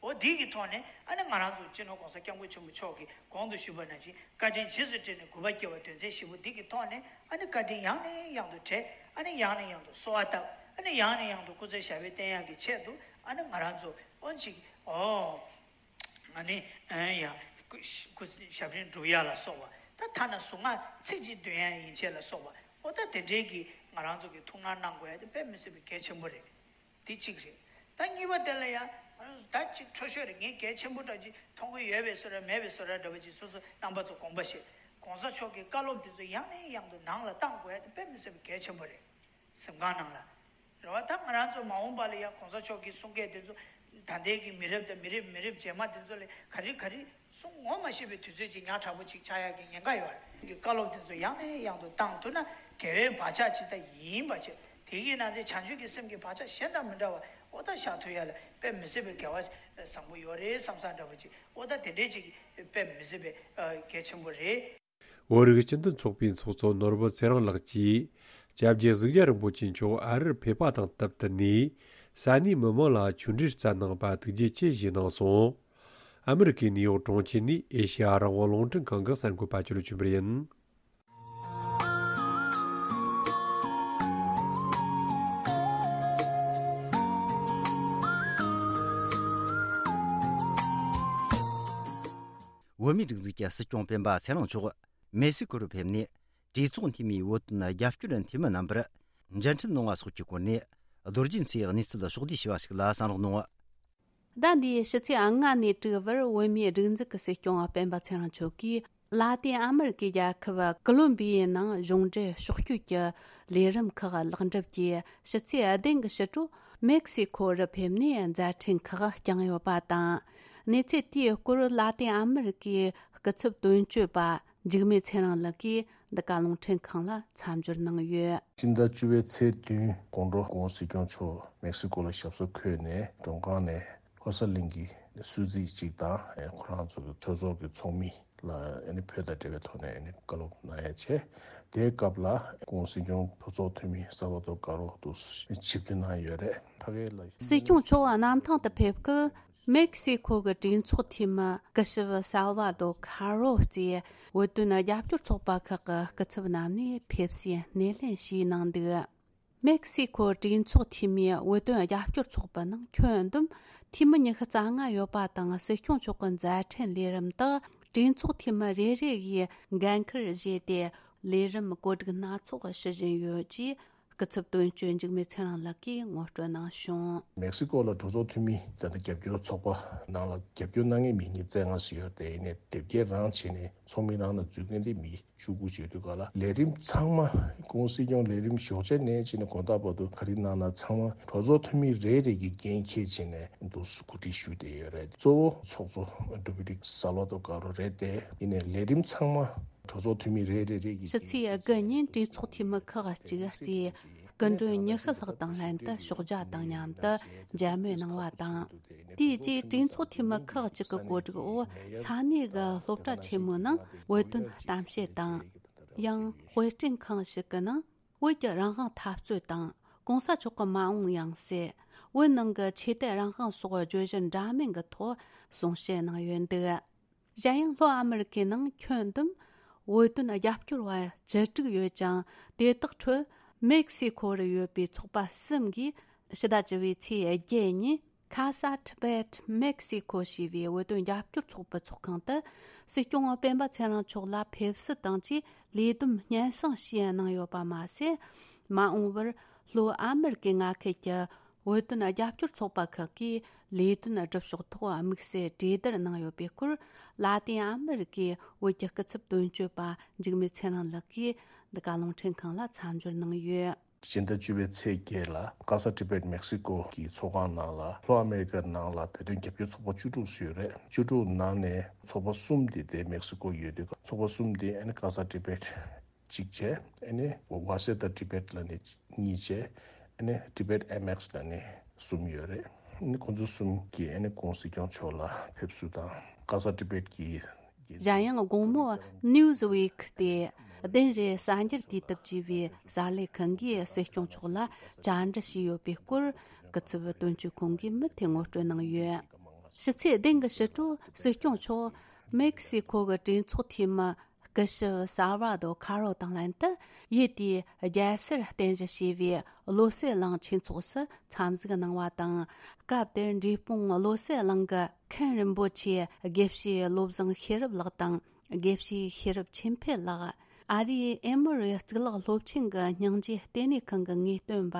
འོ་འདི་གི་ཐོག་ནས་ཨ་ནི་ང་རང་ཚོ་སྤྱི་ནོར་༸གོང་ས་༸སྐྱབས་མགོན་ཆེན་པོ་མཆོག་གིས་གོང་དུ་ཞུས་པ་ནང་བཞིན་བཀའ་དྲིན་རྗེས་སུ་དྲན་ནས་གུས་པ་སྐྱེ་བ་དོན་ཚན་བཞི་པོ་འདི་གི་ཐོག་ནས་ཨ་ནི་བཀའ་དྲིན་ཡང་ནས་ཡང་དུ་དྲན། ཨ་ནི་ཡང་ནས་ཡང་དུ་གསོལ་བ་བཏབ། ཨ་ནི་ཡང་ནས་ཡང་དུ་སྐུ་ཚེ་ཞབས་པད་བརྟན་ཡག་གི་ཆེད་དུ་ཨ་ནི་ང་རང་ཚོ་ཨོ་ཅིག་ཨོ། ང་ནི་ཨེ་ཡ་སྐུ་སྐུ་ཞབས་རིམ་སྒྲུབ་ཡ་ལ་སོགས་པ། ད་ཐ་ན་གཟུངས་སྔགས་ཚིག་གཅིག་འདོན་ཡ་ཡན་ཆད་ལ་སོགས་པ། ཨོ་ད་དེ་འདྲའི་གི་ང་རང་ཚོ་གི་ཐུགས་སྣང་གནང་དགོས་ཡ་དེ་དཔེ་མི་སྲིད་པའི་གལ་ཆེན་པོ་རེད། དེ་གཅིག་རེད། ད་གཉིས་པ་དེ་ལ་ཡ་ང་རང་ཚོ་ད་ཅིག་འཕྲོ་ཤོས་རེད། ངས་གལ་ཆེན་པོ་འདྲ་ཅིག་མཐོང་གི་ཡོད་པའི་བཟོ་འདྲ་མེད་པའི་བཟོ་འདྲ་འདྲ་པོ་ཅིག་སོ་སོ་རྣམ་པ་ཚོ་དགོངས་པ་བཞེས། གོང་ས་མཆོག་གི་བཀའ་སློབ་དེ་ཚོ་ཡང་ནས་ཡང་དུ་ནང་ལ་བཏང་དགོས་ཡ་དེ་དཔེ་མི་སྲིད་པའི་གལ་ཆེན་པོ་རེད། གཟིམ་ཁང་ནང་ལ། རེད་བ། ད་ང་རང་ཚོ་མ་འོངས་པ་ལ་ཡང་གོང་ས་མཆོག་གི་གསུང་སྐད་དེ་ཚོ་ད་ལྟའི་གི་མི་རབས་དང་མི་རབས་མི་རབས་རྗེས་མ་དེ་ཚོ་ལ་ག་རེ་ག་རེ་གསུང་ངོ་མ་ཤེས་པའི་དུས་ཚོད་ཅིག་ཉག་ཕྲ་པོ་ཅིག་ཆགས་ཡག་གི་ཉེན་ཁ་ཡོད་རེད། གི་བཀའ་སློབ་དེ་ཚོ་ཡང་ནས་ཡང་དུ་བཏང་ཐུབ་ན་དགེ་བའི་བག་ཆགས་ཅིག་ད་ཡིན་པ་བྱས། དེ་གི་ནང་ཚན་བྱང་ཆུབ་ཀྱི་སེམས་ཀྱི་བག་ཆགས་གཞན་དང་མི་འདྲ་བ་ཨོ་ད་བཞག་ཐུབ་ཡ་ལ་དཔེ་མི་སྲིད་པའི་དགེ་བ་བཟང་པོ་ཡོད་རེད་བསམ་བསམ་འདྲ་པོ་ཅིག་ཨོ་ད་དེ་འདྲའི་ཅིག་དཔེ་མི་སྲིད་པའི་གལ་ཆེན་པོ་རེད། བོད་རིགས་སྤྱི་མཐུན་ཚོགས་པའི་ཚོགས་གཙོ་ནོར་བུ་ཚེ་རིང་ལགས་ཀྱིས་སྐྱབས་རྗེ་གཟུགས་རྒྱལ་རིན་པོ་ཆེ་མཆོག་ཨ་རིར་ཕེབས་པ་དང་སྟབས་བསྟུན་ནས་ས་གནས་མི་མང་ལ་ཆོས་འབྲེལ་སྩལ་གནང་བ་ཐུགས་རྗེ་ཆེ་ཞུས་གནང་སོང་། ཨ་མི་རི་ཀའི་ནིའུ་ཡོག་གྲོང་ཁྱེར་ནས་ཨེ་ཤེ་ཡ་རང་དབང་རླུང་འཕྲིན་ཁང་གི་གསར་འགོད་པ་ཅོ་ལོ་ཆོས་འཕེལ་ཡིན། བོད་མིའི་སྒྲིག་འཛུགས་ཀྱི་སྲིད་སྐྱོང་སྤེན་པ་ཚེ་རིང་མཆོག་མེག་སི་ཀོ་རུ་ཕེབས་ནས། གྲོས་ཚོགས་འཐུས་མིའི་བོད་དོན་རྒྱབ་སྐྱོར་འཐུས་མི་རྣམ་པར་མཇལ་འཕྲད་གནང་བ་སོགས་ཀྱི་སྐོར་ནས། རྡོ་རྗེ་མཚོས་གནས་ཚུལ་ཕྱོགས་བསྡུས་ཞུས་པ་ཞིག་ལ་གསན་རོགས་གནང་། ཟླ་འདིའི་ཕྱི་ཚེས་ལྔ་ནས་དྲུག་བར་བོད་མིའི་སྒྲིག་འཛུགས་ཀྱི་སྲིད་སྐྱོང་སྤེན་པ་ཚེ་རིང་མཆོག་གིས། ལ་ཏིན་ཨ་མེ་རི་ཀའི་རྒྱལ་ཁབ་ཀོ་ལོམ་བི་ཡའི་ནང་གཞུང་འབྲེལ་ཕྱོགས་བསྐྱོད་ཀྱི་ལས་རིམ་ཁག་ལེགས་འགྲུབ་ཀྱིས། ཕྱི་ཚེས་བདུན་གྱི་ཕྱི་དྲོ་མེག་སི་ཁོ་རུ་ཕེབས་ནས་མཛད་འཕྲིན་ཁག་བསྐྱངས་ཡོད་པ་དང་། གནས་ཚུལ་དེའི་སྐོར་ལ་ཏིན་ཨ་མེ་རི་ཀའི་སྐུ་ཚབ་དོན་གཅོད་པ་འཇིགས་མེད་ཚེ་རིང་ལགས་ཀྱིས་འདི་ག་རླུང་འཕྲིན་ཁང་ལ་མཚམས་སྦྱོར་གནང་ཡོད། སྤྱི་ཟླ་བཅུ་པའི་ཚེས་བདུན་དགོང་དྲོ་༸གོང་ས་༸སྐྱོང་མཆོག་མེག་སི་ཀོ་ལ་ཞབས་སོར་འཁོད་ནས་མགྲོན་ཁང་ནས། ལྷོ་གསར་གླིང་གི་གསོལ་ཚིགས་གཅིག་དང་ཁོ་རང་ཚོ་གི་ཆོས་ཚོགས་ཀྱི་ཚོགས་མི་ལ་ཨ་ནི་བོད་དང་འབྲེལ་བའི་ཐོག་ནས་ཨ་ནི་བཀའ་སློབ་གནང་ཡ་བྱས། དེའི་སྐབས་ལ་༸གོང་ས་༸སྐྱོང་གྲོས་ཚོགས་འཐུས་མི་ས་བ་ཏོ་ཀ་རོ་དུ་ཆིབས་བསྒྱུར་གནང་ཡོད་རེད། ཕ་གི་ལ་སྲིད་སྐྱོང་མཆོག་གནམ་ཐང་དུ་ཕེབས་སྐབས་མེག་སི་ཁོ་གི་གྲོས་ཚོགས་འཐུས་མི་སྐུ་ཞབས་ས་བ་ཏོ་ཁ་རོ་གཙོས་བོད་དོན་རྒྱབ་སྐྱོར་ཚོགས་པ་ཁག་གི་སྐུ་ཚབ་རྣམས་ནས་ཕེབས་བསུའི་སྣེ་ལེན་ཞུས་གནང་འདུག་མེག་སི་ཁོ་གྲོས་ཚོགས་འཐུས་མིའི་བོད་དོན་རྒྱབ་སྐྱོར་ཚོགས་པའི་ནང་ཁྱོན་བསྡོམས་འཐུས་མི་ཉི་ཤུ་རྩ་ལྔ་ཡོད་པ་དང་། སྲིད་སྐྱོང་མཆོག་གི་མཛད་འཕྲིན་ལས་རིམ་དག་གྲོས་ཚོགས་འཐུས་མི་རེ་རེ་ཡིས་འགན་འཁུར་བཞེས་ཏེ། ལས་རིམ་བཀོད་སྒྲིག་སྣ་ཚོགས་ཞུ་བཞིན་ཡོད་ཅེས་སྐུ་ཚབ་དོན་གཅོད་འཇིགས་མེད་ཚེ་རིང་ལགས་ཀྱིས་ངོ་སྤྲོད་གནང་བྱུང་། མེག་སི་ཀོ་ལ་གྲོས་ཚོགས་འཐུས་མི་ད་ལྟ་རྒྱབ་སྐྱོར་ཚོགས་པ་ནང་ལ་རྒྱབ་སྐྱོར་གནང་མཁན་མི་ཉིས་རྩ་ལྔ་ཞིག་ཡོད་དེ། ཡིན་ནའི་དེབ་སྐྱེལ་རང་བྱས་ནས་ཚོགས་མི་རང་ལ་འཛུལ་མཁན་དེ་མི་བཅུ་དགུ་བྱེད་དུས་ག་ལ། ལས་རིམ་ཚང་མ་༸གོང་ས་༸སྐྱོང་ལས་རིམ་ཞོགས་ཇ་ནས་བྱས་ནས་དགོང་དག་བར་དུ་ག་རེ་གནང་ན་ཚང་མ་གྲོས་ཚོགས་འཐུས་མི་རེ་རེ་གིས་འགན་འཁྱེར་བྱས་ནས་འདུག་སེ་གོ་སྒྲིག་ཞུས་བསྡད་ཡོད་རེད། གཙོ་བོ་ཚོགས་གཙོ་ཌོ་མི་ནིག་ས་ལོ་ཏོ་ཀ་རོ་རེད་དེ། ཡིན་ནའི་ལས་རིམ་ཚང་མ་གྲོས་ཚོགས་འཐུས་མི་རེ་རེ་རེ་གིས། ཕྱི་ཚེས་དགུ་ཉིན་གྲོས་ཚོགས་འཐུས་མི་ཁག་ཅིག་གིས་སྐུ་མགྲོན་ཉི་ཤུ་ལྷག་དང་ལྷན་དུ་ཞོགས་ཇ་དང་མཉམ་དུ་མཇལ་མོལ་གནང་བ་དང་། དེའི་རྗེས་གྲོས་ཚོགས་འཐུས་མི་ཁག་ཅིག་གི་གོ་སྒྲིག་འོག་ས་གནས་ཀྱི་སློབ་གྲྭ་ཆེན་མོའི་ནང་བོད་དོན་གཏམ་བཤད་དང་། ཡང་དཔེ་སྐྲུན་ཁང་ཞིག་གི་ནང་བོད་ཀྱི་རང་དབང་འཐབ་རྩོད་དང་། གོང་ས་མཆོག་གི་མ་འོངས་ཡང་སྲིད། བོད་ནང་གི་ཆོས་དད་རང་དབང་སོགས་བརྗོད་གཞི་འདྲ་མིན་གྱི་ཐོག་གསུང་བཤད་གནང་ཡོད་འདུག་གཞན་ཡང་ལྷོ་ཨ་མེ་རི་ཀའི་ནང་ཁྱོན་བསྡོམས་བོད་དོན་རྒྱབ་སྐྱོར་བ་བཅུ་དྲུག་ཡོད་ཅིང་། དེ་དག་ཁྲོད་མེག་སི་ཁོ་རུ་ཡོད་པའི་ཚོགས་པ་གསུམ་གིས་ཕྱི་ཟླ་བཅུ་པའི་ཚེས་བརྒྱད་ཉིན་Casa Tibet Mexico ཞེས་པའི་བོད་དོན་རྒྱབ་སྐྱོར་ཚོགས་པའི་ཚོགས་ཁང་དུ་སྲིད་སྐྱོང་སྤེན་པ་ཚེ་རིང་མཆོག་ལ་ཕེབས་བསུ་དང་བཅས་ལས་བསྡོམས་སྙན་སེང་ཞུས་གནང་ཡོད་པ་མ་ཟད། མ་འོངས་པར་ལྷོ་ཨ་མེ་རི་ཀའི་མངའ་ཁུལ་གྱི་བོད་དོན་རྒྱབ་སྐྱོར་ཚོགས་པ་ཁག་གིས་ལས་དོན་སྒྲུབ་ཕྱོགས་ཐོག་དམིགས་བསལ་གྲོས་བསྡུར་གནང་ཡོད་པའི་སྐོར། ལ་ཏིན་ཨ་མེ་རི་ཀའི་བོད་ཀྱི་སྐུ་ཚབ་དོན་གཅོད་པ་འཇིགས་མེད་ཚེ་རིང་ལགས་ཀྱིས་འདི་ག་རླུང་འཕྲིན་ཁང་ལ་མཚམས་སྦྱོར་གནང་ཡོད། སྤྱི་ཟླ་བཅུ་པའི་ཚེས་བརྒྱད་ལ་Casa Tibet Mexico གི་ཚོགས་ཁང་ནང་ལ། ལྷོ་ཨ་མེ་རི་ཀའི་ནང་ལ་བོད་དོན་རྒྱབ་སྐྱོར་ཚོགས་པ་བཅུ་དྲུག་ཙམ་ཡོད་རེད། བཅུ་དྲུག་ནང་ནས་ཚོགས་པ་གསུམ་དེ་དེ་མེག་སི་ཀོ་ཡོད་དུས། ཚོགས་པ་གསུམ་དེ་ཨ་ནི་Casa Tibet གཅིག་བྱས། ཨ་ནི་Waseda Tibet ལབ་ནས་གཉིས་བྱས། ཨ་ནི་Tibet M X ལབ་ནས་གསུམ་ཡོད་རེད། ཨ་ནི་ཁོང་ཚོ་གསུམ་གྱིས་ཨ་ནི་༸གོང་ས་༸སྐྱོང་མཆོག་ལ་ཕེབས་བསུ་དང་། Casa Tibet གྱི་གཞན་ཡང་དགོང་མོ་Newsweek སྟེ་གདན་རེ་གསར་འགྱུར་དུས་དེབ་ཅེས་པའི་གསར་ལས་ཁང་གིས་སྲིད་སྐྱོང་མཆོག་ལ་བཅར་འདྲི་ཞུས་ཡོད་པའི་སྐོར། སྐུ་ཚབ་དོན་གཅོད་ཁང་གིས་མུ་མཐུད་ངོ་སྤྲོད་གནང་ཡོད། ཕྱི་ཚེས་བདུན་གྱི་ཕྱི་དྲོ་སྲིད་སྐྱོང་མཆོག་མེག་སི་ཁོ་གི་གྲོས་ཚོགས་འཐུས་མི་སྐུ་ཞབས་ས་བྷ་དོ་ཁ་རོ་དང་ལྷན་དུ་ཡུལ་དེའི་རྒྱལ་སར་རྟེན་གཞི་བྱས་པའི་བློ་གསལ་གླིང་ཆོས་ཚོགས་སུ་འཚམས་གཟིགས་གནང་བ་དང་། སྐབས་དེར་འབྲས་སྤུངས་བློ་གསལ་གླིང་གི་མཁན་རིན་པོ་ཆེ་དགེ་བཤེས་བློ་བཟང་ཤེས་རབ་ལགས་དང་། དགེ་བཤེས་ཤེས་རབ་ཆོས་འཕེལ་ལགས། ཨ་རིའི་ཨེ་མོ་རི་གཙུག་ལག་སློབ་ཆེན་གྱི་སྙིང་རྗེ་ལྟེ་གནས་ཁང་གི་ངེས་སྟོན་པ་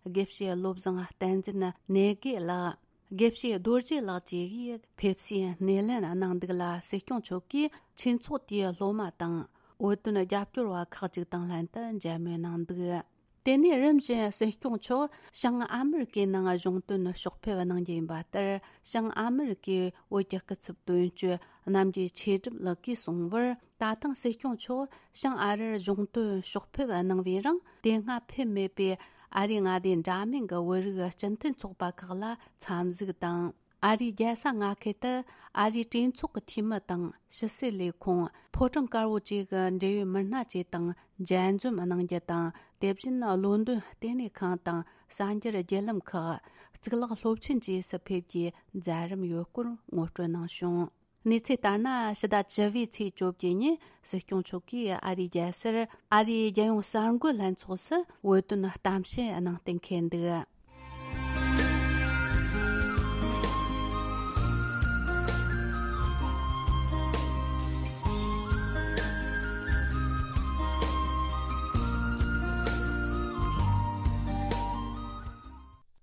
དགེ་བཤེས་བློ་བཟང་བསྟན་འཛིན་གནས་དགེ་ལགས། དགེ་བཤེས་རྡོ་རྗེ་ལགས་བཅས་ཀྱིས་ཕེབས་བསུའི་སྣེ་ལེན་གནང་འདུག་ལ། སྲིད་སྐྱོང་མཆོག་གིས་ཆོས་ཚོགས་དེའི་སློབ་མ་དང་བོད་དོན་རྒྱབ་སྐྱོར་བ་ཁག་ཅིག་དང་ལྷན་དུ་མཇལ་མོལ་གནང་འདུག་དེ་ནས་རིམ་བཞིན་སྲིད་སྐྱོང་མཆོག་བྱང་ཨ་མེ་རི་ཀའི་ནང་གཞུང་དོན་ཕྱོགས་ཕེབས་གནང་རྒྱུ་ཡིན་པ་ལྟར། བྱང་ཨ་མེ་རི་ཀའི་བོད་ཀྱི་སྐུ་ཚབ་དོན་གཅོད་རྣམ་རྒྱལ་ཆོས་སྒྲུབ་ལགས་ཀྱིས་གསུངས་པར། ད་ཐེངས་སྲིད་སྐྱོང་མཆོག་བྱང་ཨ་རིར་གཞུང་དོན་ཕྱོགས་ཕེབས་གནང་བའི་རིང་། དེ་སྔ་ཕེབས་མེད་པའི་ཨ་རིའི་མངའ་སྡེ་འདྲ་མིན་གྱི་བོད་རིགས་སྤྱི་མཐུན་ཚོགས་པ་ཁག་ལ་འཚམས་གཟིགས་དང་། ཨ་རིའི་རྒྱལ་ས་མངའ་ཁུལ་དུ་ཨ་རིའི་གྲོས་ཚོགས་ཀྱི་འཐུས་མི་དང་། ཕྱི་སྲིད་ལས་ཁུངས། ཕོ་བྲང་དཀར་པོ་བཅས་ཀྱི་འབྲེལ་ཡོད་མི་སྣ་བཅས་དང་མཇལ་འཛོམས་གནང་རྒྱུ་དང་། དེ་བཞིན་ལོན་ཏོན་ལྟེ་གནས་ཁང་དང་གསར་འགྱུར་བརྒྱུད་ལམ་ཁག་གཙུག་ལག་སློབ་ཆེན་བཅས་སུ་ཕེབས་རྒྱུའི་མཛད་རིམ་ཡོད་སྐོར་ངོ་སྤྲོད་གནང་བྱུང་། གནས་ཚུལ་ལྟར་ན། ཕྱི་ཟླ་བཅུ་པའི་ཚེས་བཅོ་བརྒྱད་ཉིན་སྲིད་སྐྱོང་མཆོག་གིས་ཨ་རིའི་རྒྱལ་སར་ཨ་རིའི་རྒྱལ་ཡོངས་གསར་འགོད་ལྷན་ཚོགས་སུ་བོད་དོན་གཏམ་བཤད་གནང་གཏན་འཁེལ་འདུག་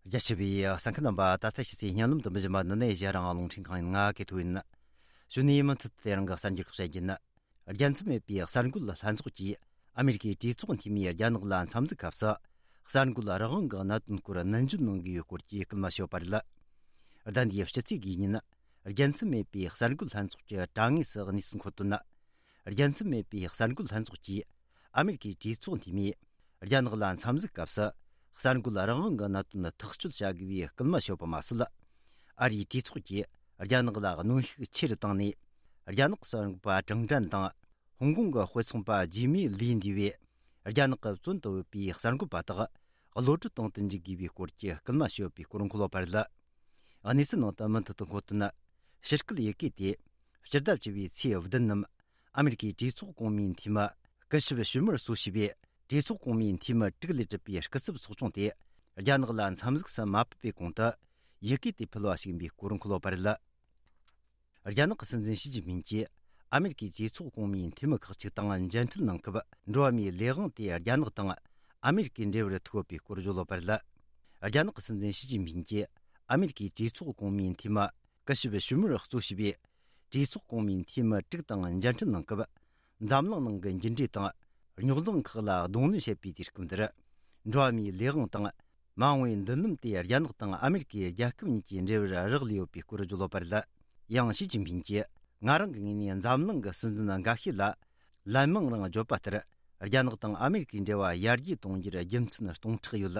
རྒྱ་ཆེ་བའི་གསན་མཁན་རྣམ་པ། ད་ལྟ་ཕྱི་ཚེས་སྙན་ལམ་དུ་མི་བཞིན་པ་འདི་ནས་གཞན་རང་རླུང་འཕྲིན་ཁང་ཡིན། ང་གི་ཐུག་ཡིན། གཞུག་ནས་མུ་མཐུད་དེ་རང་གི་གསར་འགྱུར་ཁག་བཤད་རྒྱུ་ཡིན། རྒྱལ་མཚམས་མེད་པའི་གསར་འགོད་ལྷན་ཚོགས་ཀྱིས་ཨ་མེ་རི་ཀའི་གྲོས་ཚོགས་འཐུས་མིས་རྒྱ་ནག་ལ་འཚམས་གཟིགས་སྐབས་སུ། གསར་འགོད་རང་དབང་གི་གནད་དོན་སྐོར་ནན་བརྗོད་གནང་དགོས་པའི་སྐོར་གྱི་སྐུལ་མ་ཞུས་པ་རེད། ཟླ་འདིའི་ཕྱི་ཚེས་དགུའི་ཉིན། རྒྱལ་མཚམས་མེད་པའི་གསར་འགོད་ལྷན་ཚོགས་ཀྱི་དྲ་ངོས་སུ་གནས་ཚུལ་འཁོད་དོན། རྒྱལ་མཚམས་མེད་པའི་གསར་འགོད་ལྷན་ཚོགས་ཀྱིས་ཨ་མེ་རི་ཀའི་གྲོས་ཚོགས་འཐུས་མིས་རྒྱ་ནག་ལ་འཚམས་གཟིགས་སྐབས་སུ། གསར་འགོད་རང་དབང་གི་གནད་དོན་ཐག་གཅོད་བྱ་དགོས་པའི་སྐུལ་མ་ཞུས་པ་མ་ཟད། ཨ་རིའི་གྲོས་ཚོགས་ཀྱིས་རྒྱ་ནག་ལ་གནོན་ཤུགས་ཆེ་རུ་བཏང་ནས། རྒྱ་ནག་གསར་འགོད་པ་ཀྲང་ཀྲན་དང་། ཧོང་ཀོང་གི་དཔེ་ཚོང་པ་ཇི་མི་ལི་འདུས་པས། རྒྱ་ནག་གི་བཙོན་དུ་ཡོད་པའི་གསར་འགོད་པ་དག་གློད་གྲོལ་གཏོང་དུ་འཇུག་དགོས་པའི་སྐོར་གྱི་སྐུལ་མ་ཞུས་པའི་སྐོར་འཁོད་ཡོད་པ་རེད། གནས་ཚུལ་ནང་དུ་མུ་མཐུད་དུ་འཁོད་དོན། ཕྱི་སྐད་ཡི་གེ་དེ་སྤྱི་ཟླ་བཅུ་པའི་ཚེས་བདུན་ཉིན། ཨ་མེ་རི་ཀའི་གྲོས་ཚོགས་གོང་མའི་འཐུས་མི་སྐུ་ཞབས་ཞུ་མར་གཙོ་བྱས་པའི་གྲོས་ཚོགས་གོང་མའི་འཐུས་མི་དྲུག་ལས་གྲུབ་པའི་སྐུ་ཚབ་ཚོགས་ཆུང་དེ། རྒྱ་ནག་ལ་འཚམས་གཟིགས་སུ་མ་ཕེབས་པའི་གོང་དུ། ཡི་གེ་དེ་ཕུལ་བ་ཞིག་ཡིན་པའི་སྐོར་འཁོད་ཡོད་པ་རེད། རྒྱ་ནག་གི་སྲིད་འཛིན་ཞི་ཅིན་ཕིང་གིས་ཨ་མེ་རི་ཀའི་གྲོས་ཚོགས་གོང་མའི་འཐུས་མི་ཁག་ཅིག་དང་མཇལ་འཕྲད་གནང་སྐབས། འགྲོ་བ་མིའི་ལས་དབང་དེ་རྒྱ་ནག་དང་ཨ་མེ་རི་ཀའི་འབྲེལ་བར་ཐུག་ཡོད་པའི་སྐོར་བརྗོད་ཡོད་པ་རེད། རྒྱ་ནག་གི་སྲིད་འཛིན་ཞི་ཅིན་ཕིང་གིས་ཨ་མེ་རི་ཀའི་གྲོས་ཚོགས་གོང་མའི་འཐུས་མི་སྐུ་ཞབས་ཞུ་མར་གཙོ་བྱས་པའི་གྲོས་ཚོགས་གོང་མའི་འཐུས་མི་དྲུག་དང་མཇལ་འཕྲད་གནང་སྐབས། འཛམ་གླིང་ནང་གི་འགྱུར་འགྲོས་དང་རྙོག་འཛིང་ཁག་ལ་གདོང་ལེན་བྱེད་པའི་དུས་སྐབས་འདིར། འགྲོ་བ་མིའི་ལས་དབང་དང་མ་འོངས་པའི་མདུན་ལམ་དེ་རྒྱ་ནག་དང་ཨ་མེ་རི་ཀའི་རྒྱལ་ཁབ་གཉིས་ཀྱི་འབྲེལ་བར་རག་ལས་ཡོད་པའི་སྐོར་བརྗོད་ཡོད་པ་རེད། ཡང་ཞི་ཅིན་ཕིང་གིས། ང་རང་གི་ངོས་ནས་འཛམ་གླིང་གི་སྲིད་འཛིན་འགའ་ཤས་ལ་ལན་མང་རང་བརྗོད་པ་ལྟར། རྒྱ་ནག་དང་ཨ་མེ་རི་ཀའི་འབྲེལ་བ་ཡར་རྒྱས་གཏོང་རྒྱུར་རྒྱུ་མཚན་སྟོང་ཕྲག་ཡོད།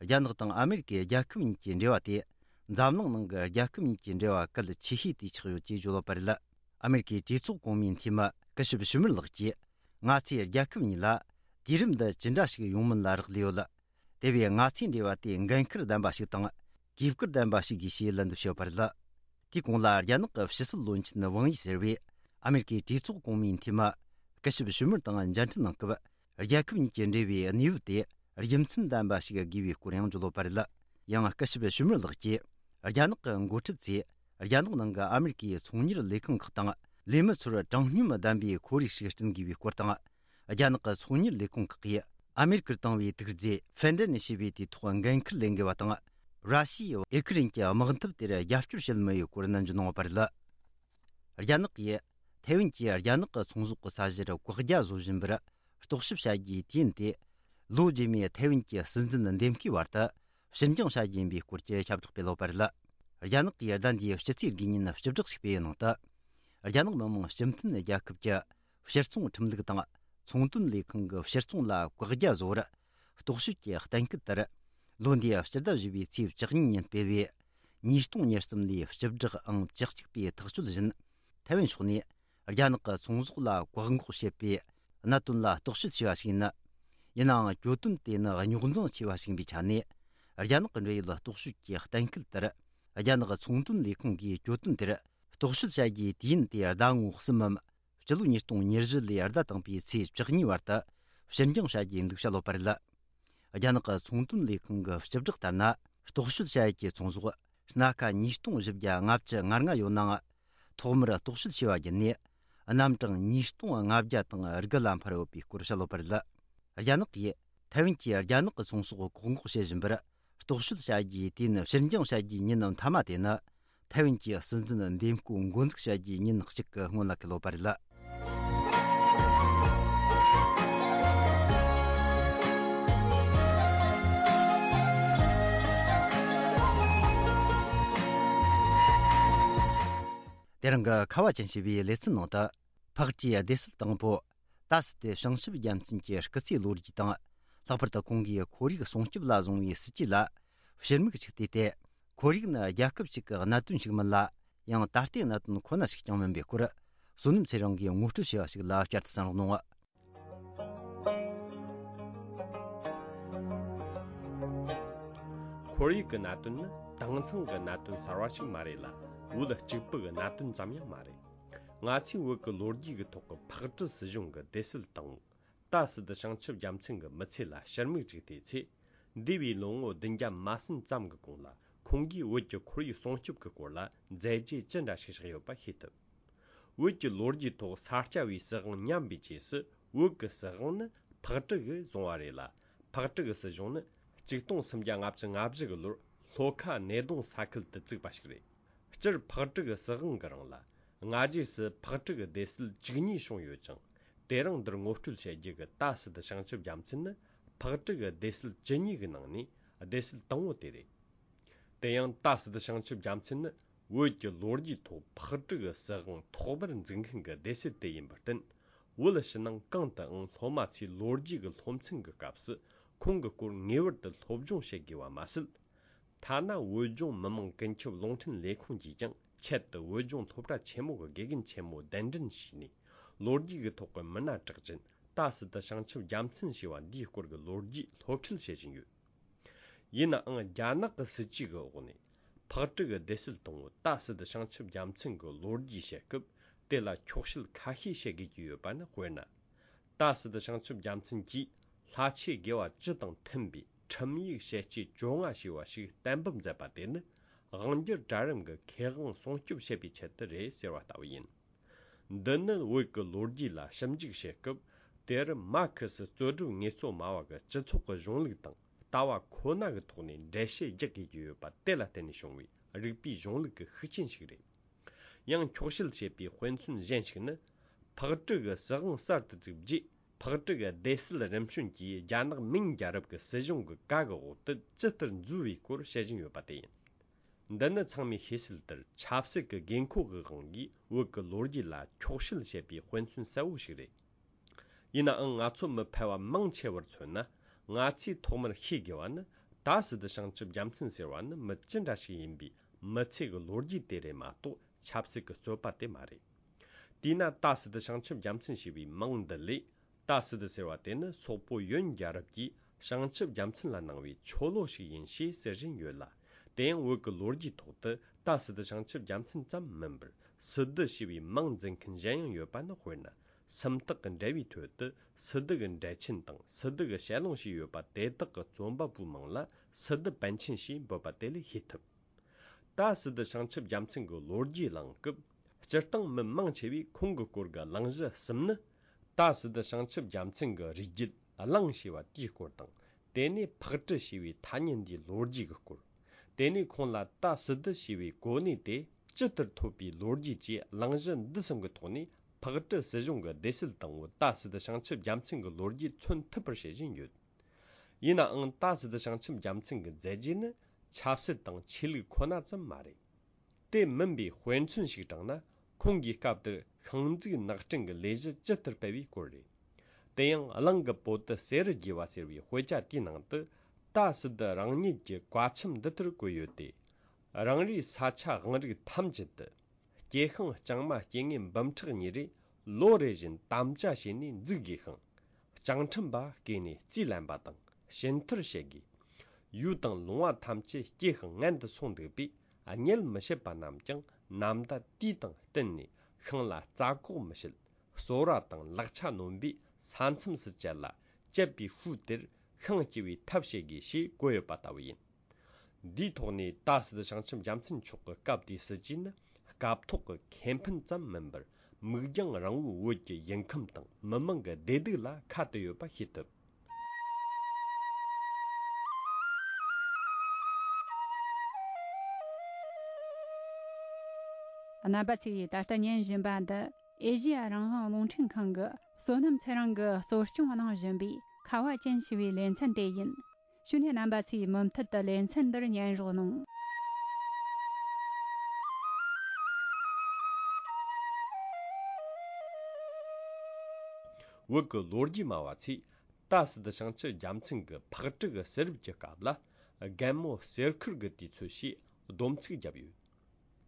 རྒྱ་ནག་དང་ཨ་མེ་རི་ཀའི་རྒྱལ་ཁབ་གཉིས་ཀྱི་འབྲེལ་བ་དེ་འཛམ་གླིང་ནང་གི་རྒྱལ་ཁབ་གཉིས་ཀྱི་འབྲེལ་བ་གལ་ཆེ་ཤོས་དེ་ཆགས་ཡོད་ཅེས་བརྗོད་ཡོད་པ་རེད། ཨ་མེ་རི་ཀའི་གྲོས་ཚོགས་གོང་མའི་འཐུས་མི་སྐུ་ཞབས་ཞུ་མར་ལགས་ཀྱིས། ང་ཚོའི་རྒྱལ་ཁབ་གཉིས་ལ་དུས་རིམ་འདི་ཇི་འདྲ་ཞིག་ཡོང་མིན་ལ་རག་ལས་ཡོད། དེ་བས་ང་ཚོའི་འབྲེལ་བ་དེ་འགན་ཁུར་ལྡན་པ་ཞིག་དང་། གུས་བཀུར་ལྡན་པ་ཞིག་དགོས་ཞེས་ལན་འདེབས་ཞུས་པ་རེད། དེའི་གོང་ལ་རྒྱ་ནག་གི་ཕྱི་སྲིད་བློན་ཆེན་ཝང་ཡི་ཟེར་བས། ཨ་མེ་རི་ཀའི་གྲོས་ཚོགས་གོང་མའི་འཐུས་མི་སྐུ་ཞབས་ཞུ་མར་དང་མཇལ་འཕྲད་གནང་སྐབས། རྒྱལ་ཁབ་གཉིས་ཀྱི་འབྲེལ་བའི་གནས་བབ་དེ་རྒྱུ་མཚན་ལྡན་པ་ཞིག་དགོས་པའི་སྐོར་ཡང་བརྗོད་ཡོད་པ་རེད། ཡང་སྐུ་ཞབས་ཞུ་མར་ལགས་ཀྱིས། རྒྱ་ནག་གི་འགོ་ཁྲིད་ཚོས་རྒྱ་ནག་ནང་གི་ཨ་མེ་རི་ཀའི་ཚོང་གཉེར་ལས་ཁང་ཁག་དང་ལས་མི་ཚོར་དྲང་སྙོམས་ལྡན་པའི་ཁོར་ཡུག་ཞིག་བསྐྲུན་དགོས་པའི་སྐོར་དང་། རྒྱ་ནག་གི་ཚོང་གཉེར་ལས་ཁུངས་ཁག་གིས་ཨ་མེ་རི་ཀར་བཏང་བའི་དུག་རྫས་ཕེན་ཌེ་ནི་ཞེས་པའི་དེའི་ཐོག་འགན་འཁུར་ལེན་དགོས་པ་དང་། ར་ཤི་ཡས་ཨུ་ཁུ་རེན་གྱི་དམག་འཐབ་དེར་རྒྱབ་སྐྱོར་བྱེད་མུས་ཡོད་སྐོར་ནན་བརྗོད་གནང་ཡོད་པ་རེད། རྒྱ་ནག་གིས་ཐའེ་ཝན་གྱིས་རྒྱ་ནག་གི་ཚོང་ཟོག་གི་ས་གཞིར་བཀག་རྒྱ་བཟོ་བཞིན་པར་རྟོག་ཞིབ་བྱ་རྒྱུའི་དུས་ཡུན་དེ། ལོ་རྗེས་མའི་ཐའེ་ཝན་གྱི་སྲིད་འཛིན་འདེམས་ཀའི་བར་དུ་ཕྱིར་འགྱངས་བྱ་རྒྱུ་ཡིན་པའི་སྐོར་གྱི་ཁྱབ་བསྒྲགས་སྤེལ་ཡོད་པ་རེད། རྒྱ་ནག་གིས་ཟླ་འདིའི་ཕྱི་ཚེས་དགུའི་ཉིན་བཅུ་དྲུག་ཞིག་སྤེལ་བའི་ནང་དུ། རྒྱ་ནག་མི་དམངས་སྤྱི་མཐུན་རྒྱལ་ཁབ་ཀྱི་ཕྱིར་ཚོང་ཁྲིམས་ལུགས་དང་ཚོང་དོན་ལས་ཁང་གི་ཕྱིར་ཚོང་ལ་བཀག་རྒྱ་བཟོ་བར་རྟོག་ཞིབ་ཀྱི་གཏན་འཁེལ་ལྟར། ལོ་འདིའི་སྤྱི་ཟླ་བཞི་པའི་ཚེས་བཅུ་གཉིས་ཉིན་སྤེལ་བའི་ཉིས་སྟོང་ཉེར་གསུམ་ལོའི་བཅུ་དྲུག་ཨང་བཅུ་གཅིག་པའི་ཐག་གཅོད་བཞིན། ཐའེ་ཝན་ཕྱོགས་ནས་རྒྱ་ནག་གི་ཚོང་ཟོག་ལ་བཀག་འགོག་བྱེད་པའི་གནད་དོན་ལ་རྟོག་ཞིབ་བྱས་པ་ཞིག་ཡིན། ཡིན་ནའང་གྱོད་དོན་དེ་ནི་རྙོག་འཛིང་ཆེ་བ་ཞིག་ཡིན་པའི་ཆ་ནས། རྒྱ་ནག་གི་འབྲེལ་ཡོད་རྟོག་ཞིབ་ཀྱི་གཏན་འཁེལ་ལྟར། རྒྱ་ནག་ཚོང་དོན་ལས་ཁུངས་ཀྱིས་གྱོད་དོན་དེར་རྟོག་ཞིབ་བྱ་རྒྱུའི་དུས་ཡུན་དེ་ཟླ་ངོ་གསུམ་མམ། སྤྱི་ལོ་ཉིས་སྟོང་ཉེར་བཞི་ལོའི་ཟླ་དང་པོའི་ཚེས་བཅུ་གཉིས་བར་དུ་ཕྱིར་འགྱངས་བྱ་རྒྱུའི་འདུག་བྱ་ཡོད་པ་རེད། རྒྱ་ནག་གི་ཚོང་དོན་ལས་ཁང་གི་སྤྱི་བསྒྲགས་ལྟར་ན། རྟོག་ཞིབ་བྱ་ཡུལ་གྱི་ཚོང་ཟོག་སྣ་ཁ་ཉིས་སྟོང་བཞི་བརྒྱ་ལྔ་བཅུ་ང་ལྔ་ཡོད་ནའང་། ཐོག་མར་རྟོག་ཞིབ་བྱས་པ་བརྒྱུད་ནས། རྣམ་གྲངས་ཉིས་སྟོང་ལྔ་བརྒྱ་དང་དགུ་ལ་འཕར་ཡོད་པའི་སྐོར་བཤད་ཡོད་པ་རེད། རྒྱ་ནག་གིས་ཐའེ་ཝན་གྱིས་རྒྱ་ནག་གི་ཚོང་ཟོག་བཀག་འགོག་བྱེད་བཞིན་པར། རྟོག་ཞིབ་བྱ་རྒྱུའི་དུས་ཡུན་ཕྱིར་འགྱངས་བྱ་རྒྱུའི་ཉིན་མཐའ་མ་དེ་ནི། ཐའེ་ཝན་གྱི་སྲིད་འཛིན་འདེམས་བསྐོ་འགོ་འཛུགས་བྱ་རྒྱུའི་ཉིན་གཅིག་གི་སྔོན་ལ་འཁེལ་ཡོད་པ་རེད། དེ་རིང་གི་ཁ་བ་ཅན་ཞེས་པའི་ལེ་ཚན་ནང་དུ། ཕག་གྲུའི་སྡེ་སྲིད་དང་པོ། ཏཱ་སི་ཏེ་བྱང་ཆུབ་རྒྱལ་མཚན་གྱི་སྐུ་ཚེའི་ལོ་རྒྱུས་དང་། ལྷག་པར་དུ་ཁོང་གིས་ཁོར་ཡུག་སྲུང་སྐྱོབ་ལ་བཟུང་བའི་སྲིད་ཇུས་ལ་ཕྱིར་མིག་ཅིག་བལྟས་ཏེ། ཁོར་ཡུག་ནི་རྒྱལ་ཁབ་ཅིག་གི་གནད་དོན་ཞིག་མིན་ལ། ཡང་ད་ལྟའི་གནད་དོན་ཁོ་ན་ཞིག་ཀྱང་མིན་པའི་སྐོར། བསོད་ནམས་ཚེ་རིང་གིས་ངོ་སྤྲོད་བྱས་པ་ཞིག་ལ་བསྐྱར་དུ་གསན་རོགས་གནང་། ཁོར་ཡུག་གི་གནད་དོན་ནི་དེང་སང་གི་གནད་དོན་གསར་བ་ཞིག་མ་རེད་ལ། བོད་གཅིག་པུ་གི་གནད་དོན་ཙམ་ཡང་མ་རེད། ང་ཚོས་བོད་ཀྱི་ལོ་རྒྱུས་ཀྱི་ཐོག་གི་ཕག་གྲུ་སྲིད་གཞུང་གི་སྡེ་སྲིད་དང་པོ། ཏཱ་སི་ཏུ་བྱང་ཆུབ་རྒྱལ་མཚན་གྱི་མི་ཚེ་ལ་ཕྱིར་མིག་ཅིག་བལྟས་ཚེ། འདས་པའི་ལོ་ངོ་བདུན་བརྒྱ་མ་ཟིན་ཙམ་གྱི་གོང་ལ་ཁོང་གིས་བོད་ཀྱི་ཁོར་ཡུག་སྲུང་སྐྱོབ་ཀྱི་སྐོར་ལ་མཛད་རྗེས་ཅི་འདྲ་ཞིག་བཞག་ཡོད་པ་ཤེས་ཐུབ། བོད་ཀྱི་ལོ་རྒྱུས་ཐོག་ས་སྐྱ་པའི་སྲིད་དབང་ཉམས་པའི་རྗེས་སུ་བོད་ཀྱི་སྲིད་དབང་ནི་ཕག་གྲུ་གིས་བཟུང་བ་རེད་ལ། ཕག་གྲུ་གི་སྲིད་གཞུང་ནི་ཆིག་སྟོང་སུམ་བརྒྱ་ལྔ་བཅུ་ང་བཞི་གི་ལོར་ ལྷོ་ཁ་སྣེ་གདོང་ས་ཁུལ་དུ་བཙུགས་པ་ཞིག་རེད། སྤྱིར་ཕག་གྲུ་གི་སྲིད་དབང་གི་རིང་ལ། སྔ་རྗེས་སུ་ཕག་གྲུ་གི་སྡེ་སྲིད་བཅུ་གཉིས་བྱུང་ཡོད་ཅིང་། དེ་རིང་འདིར་ངོ་སྤྲོད་བྱེད་རྒྱུ་གི་ཏཱ་སི་ཏུ་བྱང་ཆུབ་རྒྱལ་མཚན་ནི། ཕག་གྲུ་གི་སྡེ་སྲིད་བཅུ་གཉིས་ཀྱི་ནང་ནས་སྡེ་སྲིད་དང་པོ་དེ་རེད། དེ་ཡང་ཏཱ་སི་ཏུ་བྱང་ཆུབ་རྒྱལ་མཚན་ནི། བོད་ཀྱི་ལོ་རྒྱུས་ཐོག་ཕག་གྲུ་གི་སྲིད་དབང་ཐོག་མར་འཛུགས་མཁན་གྱི་སྡེ་སྲིད་དེ་ཡིན་པར་བརྟེན། བོད་ཕྱི་ནང་གང་དུའང་སློབ་མ་ཚོས་ལོ་རྒྱུས་ཀྱི་སློབ་ཚན་གྱི་སྐབས་སུ་ཁོང་གི་སྐོར་ངེས་པར་དུ་སློབ་སྦྱོང་བྱེད་དགོས་པ་མ་ཟད། ཐ་ན་བོད་ལྗོངས་མི་དམངས་ཀུན་ཁྱབ་རླུང་འཕྲིན་ལས་ཁུངས་ཀྱིས་ཀྱང་ཆེད་དུ་བོད་ལྗོངས་སློབ་གྲྭ་ཆེན་མོ་གི་དགེ་རྒན་ཆེན་མོ་གདན་འདྲེན་བྱས་ནས། ལོ་རྒྱུས་ཀྱི་ཐོག་གི་མི་སྣ་གྲགས་ཅན་ཏཱ་སི་ཏུ་བྱང་ཆུབ་རྒྱལ་མཚན་ཞེས་པ་འདིའི་སྐོར་གྱི་ལོ་རྒྱུས་སློབ་ཁྲིད་བྱེད་བཞིན་ཡོད། ཡིན་ནའང་རྒྱ་ནག་གི་སྲིད་བྱུས་ཀྱི་འོག་ནས་ཕག་གྲུ་གི་སྡེ་སྲིད་དང་པོ་ཏཱ་སི་ཏུ་བྱང་ཆུབ་རྒྱལ་མཚན་གྱི་ལོ་རྒྱུས་བཤད་སྐབས། དེ་ལ་འཁྱོག་བཤད་ཁ་ཤས་བྱེད་དགོས་ཀྱི་ཡོད་པ་ནི། དཔེར་ན། ཏཱ་སི་ཏུ་བྱང་ཆུབ་རྒྱལ་མཚན་གྱིས་ལྷ་ཆོས་དགེ་བ་བཅུ་དང་མཐུན་པའི་ཁྲིམས་ཡིག་ཞལ་ལྕེ་བཅོ་ལྔ་ཞེས་པ་ཞིག་གཏན་འབེབས་མཛད་པ་དེ་ནི། དབང་སྒྱུར་གྲལ་རིམ་གྱི་ཁེ་དབང་སྲུང་སྐྱོབ་བྱེད་པའི་ཆེད་དུ་རེད་ཟེར་བ་ལྟ་བུ་ཡིན། འདི་ནི་བོད་ཀྱི་ལོ་རྒྱུས་ལ་ཞིབ་འཇུག་བྱེད་སྐབས། དེར་མར་ཁེ་སི་རྩོད་སྒྲུབ་དངོས་གཙོ་སྨྲ་བ་གི་སྤྱི་ཚོགས་ཀྱི་གཞུང་ལུགས་དང་ལྟ་བ་ཁོ་ན་གི་ཐོག་ནས་འགྲེལ་བཤད་རྒྱག་དགོས་ཀྱི་ཡོད་པ་དེ་ལ་བརྟེན་ནས་བྱུང་བའི་རིག་པའི་གཞུང་ལུགས་ཀྱི་ཤུགས་རྐྱེན་ཞིག་རེད། ཡང་འཁྱོག་བཤད་བྱས་པའི་དཔེ་མཚོན་གཞན་ཞིག་ནི། ཕག་གྲུ་གི་སྲིད་དབང་གསར་དུ་བཙུགས་རྗེས། ཕག་གྲུ་གི་སྡེ་སྲིད་རིམ་བྱོན་གྱིས་རྒྱ་ནག་མིང་རྒྱལ་རབས་ཀྱི་སྲིད་གཞུང་གི་བཀའ་གི་འོག་ཏུ་ཇི་ལྟར་འཛུལ་བའི་སྐོར་བཤད་བཞིན་ཡོད་པ་དེ་ཡིན། འདི་ནི་ཚང་མས་ཤེས་གསལ་ལྟར་ཆབ་སྲིད་ཀྱི་དགོས་མཁོ་གི་དབང་གིས་བོད་ཀྱི་ལོ་རྒྱུས་ལ་འཁྱོག་བཤད་བྱེད་པའི་དཔེ་མཚོན་གསལ་བོ་ཞིག་རེད། ཡིན་ནའང་ང་ཚོ་མི་ཕལ་བ་མང་ཆེ་བར་མཚོན་ན། ང་ཚོས་ཐོག་མར་ཤེས་དགོས་པ་ནི། ཏཱ་སི་ཏུ་བྱང་ཆུབ་རྒྱལ་མཚན་ཟེར་བ་ནི་མི་ཅི་འདྲ་ཞིག་ཡིན་པའི་མི་ཚེ་གི་ལོ་རྒྱུས་དེ་རེད་མ་གཏོགས། ཆབ་སྲིད་ཀྱི་རྩོད་པ་དེ་མ་རེད། དེས་ན་ཏཱ་སི་ཏུ་བྱང་ཆུབ་རྒྱལ་མཚན་ཞེས་པའི་མིང་འདི་ལས། ཏཱ་སི་ཏུ་ཟེར་བ་དེ་ནི་སོག་པོ་ཡོན་རྒྱལ་རབས་ཀྱིས་བྱང་ཆུབ་རྒྱལ་མཚན་ལ་གནང་བའི་ཆོ་ལོ་ཞིག་ཡིན་ཞེས་ཟེར་བཞིན་ཡོད་ལ། དེ་ཡང་བོད་ཀྱི་ལོ་རྒྱུས་ཐོག་ཏུ་ཏཱ་སི་ཏུ་བྱང་ཆུབ་རྒྱལ་མཚན་ཙམ་མིན་པར། སི་ཏུ་ཞེས་པའི་མིང་འཛིན་མཁན་གཞན་ཡང་ཡོད་པ་ནི། དཔེར་ན། སུམ་རྟགས་ཀྱི་འགྲེལ་བའི་ཁྲོད་དུ་སི་ཏུ་གི་འགྲེལ་ཆེན་དང་སི་ཏུ་གི་ཞལ་ལུང་ཞེས་ཡོད་པ་དེ་དག་གི་རྩོམ་པ་པོའི་མིང་ལ་སི་ཏུ་པཎ་ཆེན་ཞེས་འབོད་པ་དེ་ལས་ཤེས་ཐུབ། ཏཱ་སི་ཏུ་བྱང་ཆུབ་རྒྱལ་མཚན་གྱི་ལོ་རྒྱུས་གླེང་སྐབས། སྤྱིར་བཏང་མི་མང་ཆེ་བས་ཁོང་གི་སྐོར་གྱི་གླེང་གཞི་གསུམ་ནི། ཏཱ་སི་ཏུ་བྱང་ཆུབ་རྒྱལ་མཚན་གྱི་རིགས་རྒྱུད་གླེང་ཞེས་པ་དེའི་སྐོར་དང་། དེ་ནས་ཕག་གྲུ་ཞེས་པའི་ཐ་སྙད་འདིའི་ལོ་རྒྱུས་ཀྱི་སྐོར། དེ་ནས་ཁོང་ལ་ཏཱ་སི་ཏུ་ཞེས་པའི་གོ་གནས་དེ་ཇི་ལྟར་ཐོབ་པའི་ལོ་རྒྱུས་བཅས། གླེང་གཞི་འདི་གསུམ་གྱི་ཐོག་ནས་ཕག་གྲུ་སྲིད་གཞུང་གི་སྡེ་སྲིད་དང་པོ་ཏཱ་སི་ཏུ་བྱང་ཆུབ་རྒྱལ་མཚན་གྱི་ལོ་རྒྱུས་མཚོན་ཐུབ་པར་བྱེད་བཞིན་ཡོད། ཡིན་ནའང་ཏཱ་སི་ཏུ་བྱང་ཆུབ་རྒྱལ་མཚན་གྱི་མཛད་རྗེས་ནི་ཆབ་སྲིད་དང་ཆོས་ལུགས་ཁོ་ན་ཙམ་མ་རེད། དེ་མིན་པའི་དཔེ་མཚོན་ཞིག་དྲངས་ན། ཁོང་གིས་སྐབས་དེར་ཤིང་འཛུགས་ནགས་སྐྲུན་གྱི་ལས་གཞི་ཇི་ལྟར་སྤེལ་བའི་སྐོར་རེད། དེ་ཡང་གླིང་གི་བོད་དུ་གསེར་རུ་རྒྱས་པ་ཟེར་བའི་དཔེ་ཆ་དེའི་ནང་དུ། ཏཱ་སི་ཏུ་རང་ཉིད་ཀྱི་བཀའ་ཆེམས་འདི་ལྟར་བཀོད་ཡོད་དེ། རང་རེའི་ས་ཆ་དབང་རིགས་ཐམས་ཅད་དུ། སྐྱེ་ཤིང་ལྕང་མ་སྐྱེ་དངོས་འབུམ་ཕྲག་གཉིས་རེ་ལོ་རེ་བཞིན་དམ་བཅའ་བྱས་ནས་འཛུགས་དགོས་ཤིང་། ལྕང་ཁྲིམས་པ་བསྐོས་ནས་རྩིས་ལེན་པ་དང་ཞུན་ཐར་བྱེད་དགོས། ཡུལ་དང་ལུང་བ་ཐམས་ཅད་སྐྱེ་ཤིང་ངན་དུ་སོང་འདུག་པས། རྙེད་མི་ཤེས་པ་རྣམས་ཀྱང་ནམ་ཟླ་དུས་དང་བསྟུན་ནས་ཤིང་ལ་རྩྭ་སྐོགས་མི་བྱེད། གསོལ་ར་དང་ལག་ཆ་སྣོན་པའི་ས་མཚམས་སུ་བཅད་ལ། བཅད་པའི་ཤུལ་དེར་ཤིང་སྐྱེ་བའི་ཐབས་བྱེད་དགོས་ཞེས་བཀོད་ཡོད་པ་ལྟ་བུ་ཡིན། འདིའི་ཐོག་ནས་ཏཱ་སི་ཏུ་བྱང་ཆུབ་རྒྱལ་མཚན་མཆོག་གི་སྐབས་དེའི་སྲིད་བྱུས་ནི། སྐབས་ཐོག་གི་ཁེ་ཕན་ཙམ་མིན་པར། མིག་རྒྱང་རིང་བོའི་བོད་ཀྱི་ཡུལ་ཁམས་དང་མི་དམངས་ཀྱི་བདེ་སྡུག་ལ་ཁ་གཏད་ཡོད་པ་ཤེས་ཐུབ། རྣམ་པ་ཚོས་ད་ལྟ་ཉན་བཞིན་པ་འདི། ཨེ་ཤེ་ཡ་རང་དབང་རླུང་འཕྲིན་ཁང་གི་བསོད་ནམས་ཚེ་རིང་གིས་གཙོ་སྐྱོང་གནང་བཞིན་པའི་ཁ་བ་ཅན་ཞེས་པའི་ལེ་ཚན་དེ་ཡིན། གཞུག་ནས་རྣམ་པ་ཚོས་མུ་མཐུད་དུ་ལེ་ཚན་འདིར་ཉན་རོགས་གནང་། བོད་ཀྱི་ལོ་རྒྱུས་སྨྲ་བ་ཚོས་ཏཱ་སི་ཏུ་བྱང་ཆུབ་རྒྱལ་མཚན་གྱི་ཕག་གྲུ་གི་གསེར་རུབ་ཀྱི་སྐབས་ལ། རྒན་མོ་གསེར་ཁུར་གྱི་དུས་ཚོད་ཞེས་སྡོམ་ཚིག་བརྒྱབ་ཡོད།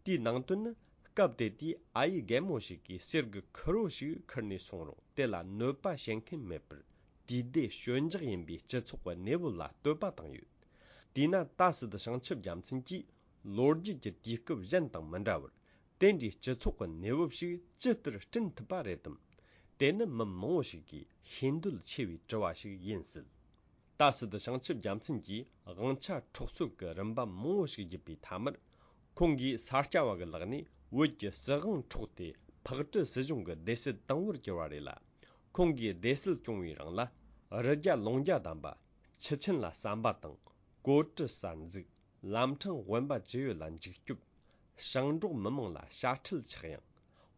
དེའི་ནང་དོན་ནི། སྐབས་དེ་དུས་ཨ་ཡེ་རྒན་མོ་ཞིག་གིས་གསེར་གྱི་ཁུར་བོ་ཞིག་ཁུར་ནས་སོང་རུང་། དེ་ལ་གནོད་པ་བྱེད་མཁན་མེད་པར། དུས་བདེ་སྐྱོན་འཇགས་ཡིན་པའི་སྤྱི་ཚོགས་ཀྱི་གནས་བབ་ལ་བསྟོད་པ་བཏང་ཡོད། དེས་ན་ཏཱ་སི་ཏུ་བྱང་ཆུབ་རྒྱལ་མཚན་གྱིས་ལོ་རྒྱུས་ཀྱི་དུས་སྐབས་གཞན་དང་མི་འདྲ་བར། དེ་འདྲའི་སྤྱི་ཚོགས་ཀྱི་གནས་བབ་ཞིག་ཇི་ལྟར་བསྐྲུན་ཐུབ་པ་རེད་དམ། དེ་ནི་མི་མང་བོ་ཞིག་གིས་ཤེས་འདོད་ཆེ་བའི་དྲི་བ་ཞིག་ཡིན་སྲིད། ཏཱ་སི་ཏུ་བྱང་ཆུབ་རྒྱལ་མཚན་གྱིས་དབང་ཆ་འཕྲོག་རྩོད་ཀྱི་རིམ་པ་མང་བོ་ཞིག་བརྒྱུད་པའི་མཐའ་མར། ཁོང་གིས་ས་སྐྱ་པ་གི་ལག་ནས་བོད་ཀྱི་སྲིད་དབང་འཕྲོག་སྟེ་ཕག་གྲུ་སྲིད་གཞུང་གི་སྡེ་སྲིད་དང་པོར་གྱུར་བ་རེད་ལ། ཁོང་གིས་སྡེ་སྲིད་སྐྱོང་བའི་རིང་ལ། རི་རྒྱ་ལུང་རྒྱ་བསྡམས་པ། ཆུ་ཆེན་ལ་ཟམ་པ་དང་། གོ་གྲུ་གསར་འཛུགས། ལམ་འཕྲང་དབེན་པ་ཅི་ཡོད་ལ་འཇིགས་སྐྱོབ། ཞིང་འབྲོག་མི་མང་ལ་དཔྱ་ཁྲལ་ཆག་ཡང་།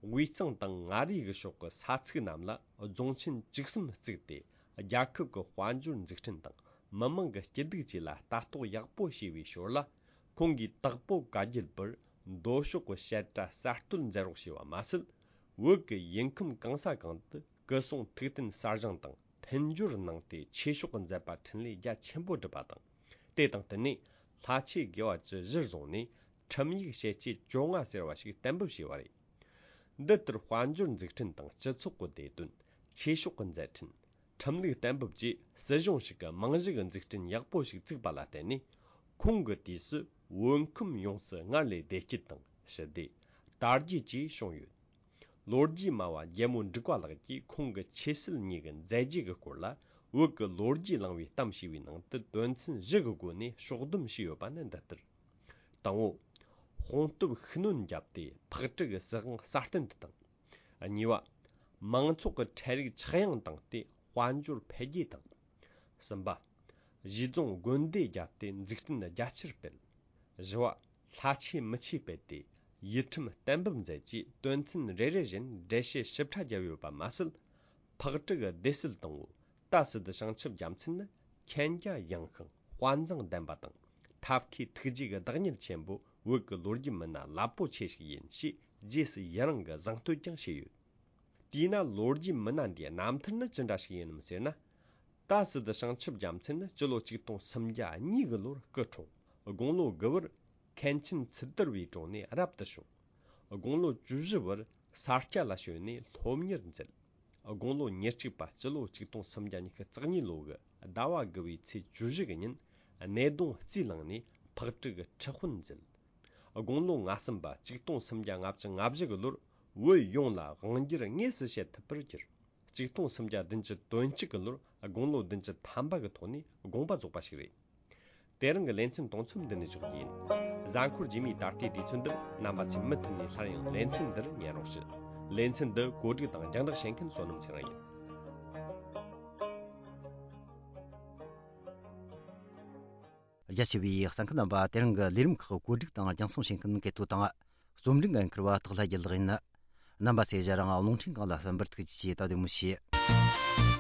དབུས་གཙང་དང་མངའ་རིས་ཀྱི་ཕྱོགས་ཀྱི་ས་ཚིགས་རྣམས་ལ་རྫོང་ཆེན་བཅུ་གསུམ་བཙུགས་ཏེ། རྒྱལ་ཁབ་ཀྱི་དཔལ་འབྱོར་འཛུགས་སྐྲུན་དང་མི་མང་གི་སྐྱིད་སྡུག་བཅས་ལ་ལྟ་རྟོག་ཡག་པོ་བྱས་པའི་ཞོར་ལ། ཁོང་གིས་དྭགས་པོ་བཀའ་བརྒྱུད་པར་མདོ་ཕྱོགས་ཀྱི་བཤད་གྲྭ་གསར་གཏོད་མཛད་རོགས་བྱས་པ་མ་ཟད། བོད་ཀྱི་ཡུལ་ཁམས་གང་ས་གང་དུ་སྐུ་སྲུང་ཐུགས་རྟེན་གསར་བཞེངས་དང་མཐུན་སྦྱོར་གནང་སྟེ། ཆོས་ཕྱོགས་ཀྱི་མཛད་པ་འཕྲིན་ལས་རྒྱ་ཆེན་པོ་བསྒྲུབས་པ་དང་། དེ་དང་བསྟུན་ནས་ལྷ་ཆོས་དགེ་བ་བཅུ་གཞིར་བཟུང་ནས་ཁྲིམས་ཡིག་ཞལ་ལྕེ་བཅོ་ལྔ་ཟེར་བ་ཞིག་གཏན་འབེབས་བྱས་པ་རེད། འདི་ལྟར་དཔལ་འབྱོར་འཛུགས་སྐྲུན་དང་སྤྱི་ཚོགས་ཀྱི་བདེ་དོན། ཆོས་ཕྱོགས་ཀྱི་མཛད་འཕྲིན། ཁྲིམས་ལུགས་གཏན་འབེབས་བཅས་སྲིད་གཞུང་ཞིག་གི་རྨང་གཞི་གི་འཛུགས་སྐྲུན་ཡག་པོ་ཞིག་བཙུགས་པ་ལ་བརྟེན་ནས། ཁོང་གི་དུས་སུ་བོད་ཁམས་ཡོངས་སུ་སྔར་ལས་བདེ་སྐྱིད་དང་ཞི་བདེ། དར་རྒྱས་བཅས་བྱུང་ཡོད། ལོ་རྒྱུས་སྨྲ་བ་རྒྱལ་མོ་འབྲུག་པ་ལགས་ཀྱིས་ཁོང་གི་ཆོས་སྲིད་གཉིས་ཀྱི་མཛད་རྗེས་ཀྱི་སྐོར་ལ། བོད་ཀྱི་ལོ་རྒྱུས་གླེང་བའི་གཏམ་ཞེས་པའི་ནང་དུ་དོན་ཚན་བཞི་གི་སྒོ་ནས་ཕྱོགས་བསྡོམས་བྱས་ཡོད་པ་ནི་འདི་ལྟར། དང་པོ། དཔུང་སྟོབས་ཤུགས་སྣོན་བརྒྱབ་སྟེ་ཕག་གྲུ་གི་སྲིད་དབང་སྲ་བརྟན་དུ་བཏང་། གཉིས་པ། མང་ཚོགས་ཀྱི་ཁྲལ་རིག་ཆག་ཡང་བཏང་སྟེ་དཔལ་འབྱོར་འཕེལ་རྒྱས་བཏང་། གསུམ་པ། གཞིས་རྫོང་དགོན་སྡེ་བརྒྱབ་སྟེ་འཛུགས་སྐྲུན་རྒྱ་ཆེར་སྤེལ། བཞི་བ། ལྷ་ཆོས་མི་ཆོས་སྤེལ་ཏེ་ཡུལ་ཁྲིམས་གཏན་འབེབས་མཛད་རྗེས་དོན་ཚན་རེ་རེ་བཞིན་འགྲེལ་བཤད་ཞིབ་ཕྲ་བརྒྱབ་ཡོད་པ་མ་ཟད། ཕག་གྲུ་གི་སྡེ་སྲིད་དང་པོ། ཏཱ་སི་ཏུ་བྱང་ཆུབ་རྒྱལ་མཚན་ནི་མཁྱེན་རྒྱ་ཡངས་ཤིང་དཔའ་མཛངས་ལྡན་པ་དང་། ཐབས་མཁས་ཐུགས་རྗེ་གི་བདག་ཉིད་ཆེན་པོ། བོད་ཀྱི་ལོ་རྒྱུས་མི་སྣ་རླབས་པོ་ཆེ་ཞིག་ཡིན་ཞེས་རྗེས་སུ་ཡི་རང་གི་གཟེངས་བསྟོད་ཀྱང་བྱས་ཡོད། དེས་ན་ལོ་རྒྱུས་མི་སྣ་འདིའི་རྣམ་ཐར་ནི་ཅི་འདྲ་ཞིག་ཡིན་ནམ་ཟེར་ན། ཏཱ་སི་ཏུ་བྱང་ཆུབ་རྒྱལ་མཚན་ནི་སྤྱི་ལོ་ཆིག་སྟོང་སུམ་བརྒྱ་གཉིས་ཀྱི་ལོར་སྐུ་འཁྲུངས། དགུང་ལོ་དགུ་བར་མཁན་ཆེན་ཚུལ་དར་བའི་དྲུང་ནས་རབ་ཏུ་བྱུང་། དགུང་ལོ་བཅུ་བཞི་བར་ས་སྐྱ་ལ་བྱོན་ནས་སློབ་གཉེར་མཛད། དགུང་ལོ་ཉེར་གཅིག་པ་སྤྱི་ལོ་ཆིག་སྟོང་སུམ་བརྒྱ་ཉི་ཤུ་རྩ་གཉིས་ལོ་གི་ཟླ་བ་དགུ་བའི་ཚེས་བཅུ་བཞི་གི་ཉིན་ནད་གདོང་རྩིས་བླངས་ནས་ཕག་གྲུ་གི་ཁྲི་དཔོན་མཛད། དགུང་ལོ་ང་གསུམ་པ་ཆིག་སྟོང་སུམ་བརྒྱ་ལྔ་བཅུ་ང་བཞི་གི་ལོར་བོད་ཡོངས་ལ་དབང་སྒྱུར་དངོས་སུ་བྱེད་ཐུབ་པར་གྱུར། ཆིག་སྟོང་སུམ་བརྒྱ་བདུན་ཅུ་དོན་གཅིག་གི་ལོར་དགུང་ལོ་བདུན་ཅུ་ཐམ་པ་གི་ཐོག་ནས་དགོངས་པ་རྫོགས་པ་ཞིག་རེད། དེ་རིང་གི་ལེ་ཚན་དུང་འཚམས་འདི་ནས་འཇོག་རྒྱུ་ཡིན། གཟའ་འཁོར་རྗེས་མའི་ད་ལྟའི་དུས་ཚོད་འདིར་རྣམ་པ་ཚོས་མུ་མཐུད་ནས་སླར་ཡང་ལེ་ཚན་འདིར་ཉན་རོགས་ཞུ། ལེ་ཚན་འདི་གོ་སྒྲིག་དང་རྒྱང་བསྒྲགས་བྱེད་མཁན་བསོད་ནམས་ཚེ་རིང་ཡིན། རྒྱ་ཆེ་བའི་གསན་མཁན་རྣམ་པ། དེ་རིང་གི་ལས་རིམ་ཁག་གོ་སྒྲིག་དང་རྒྱང་སྲིང་བྱེད་མཁན་སྐལ་རྡོ་དང་། རྩོམ་སྒྲིག་འགན་འཁུར་བ་སྟག་ལྷ་རྒྱལ་ལགས་ཡིན། རྣམ་པ་ཚོས་ཞལ་རང་རླུང་འཕྲིན་སྒང་ལ་གསན་པར་ཐུགས་རྗེ་ཆེ། ད་དེ་མོ་བྱེད།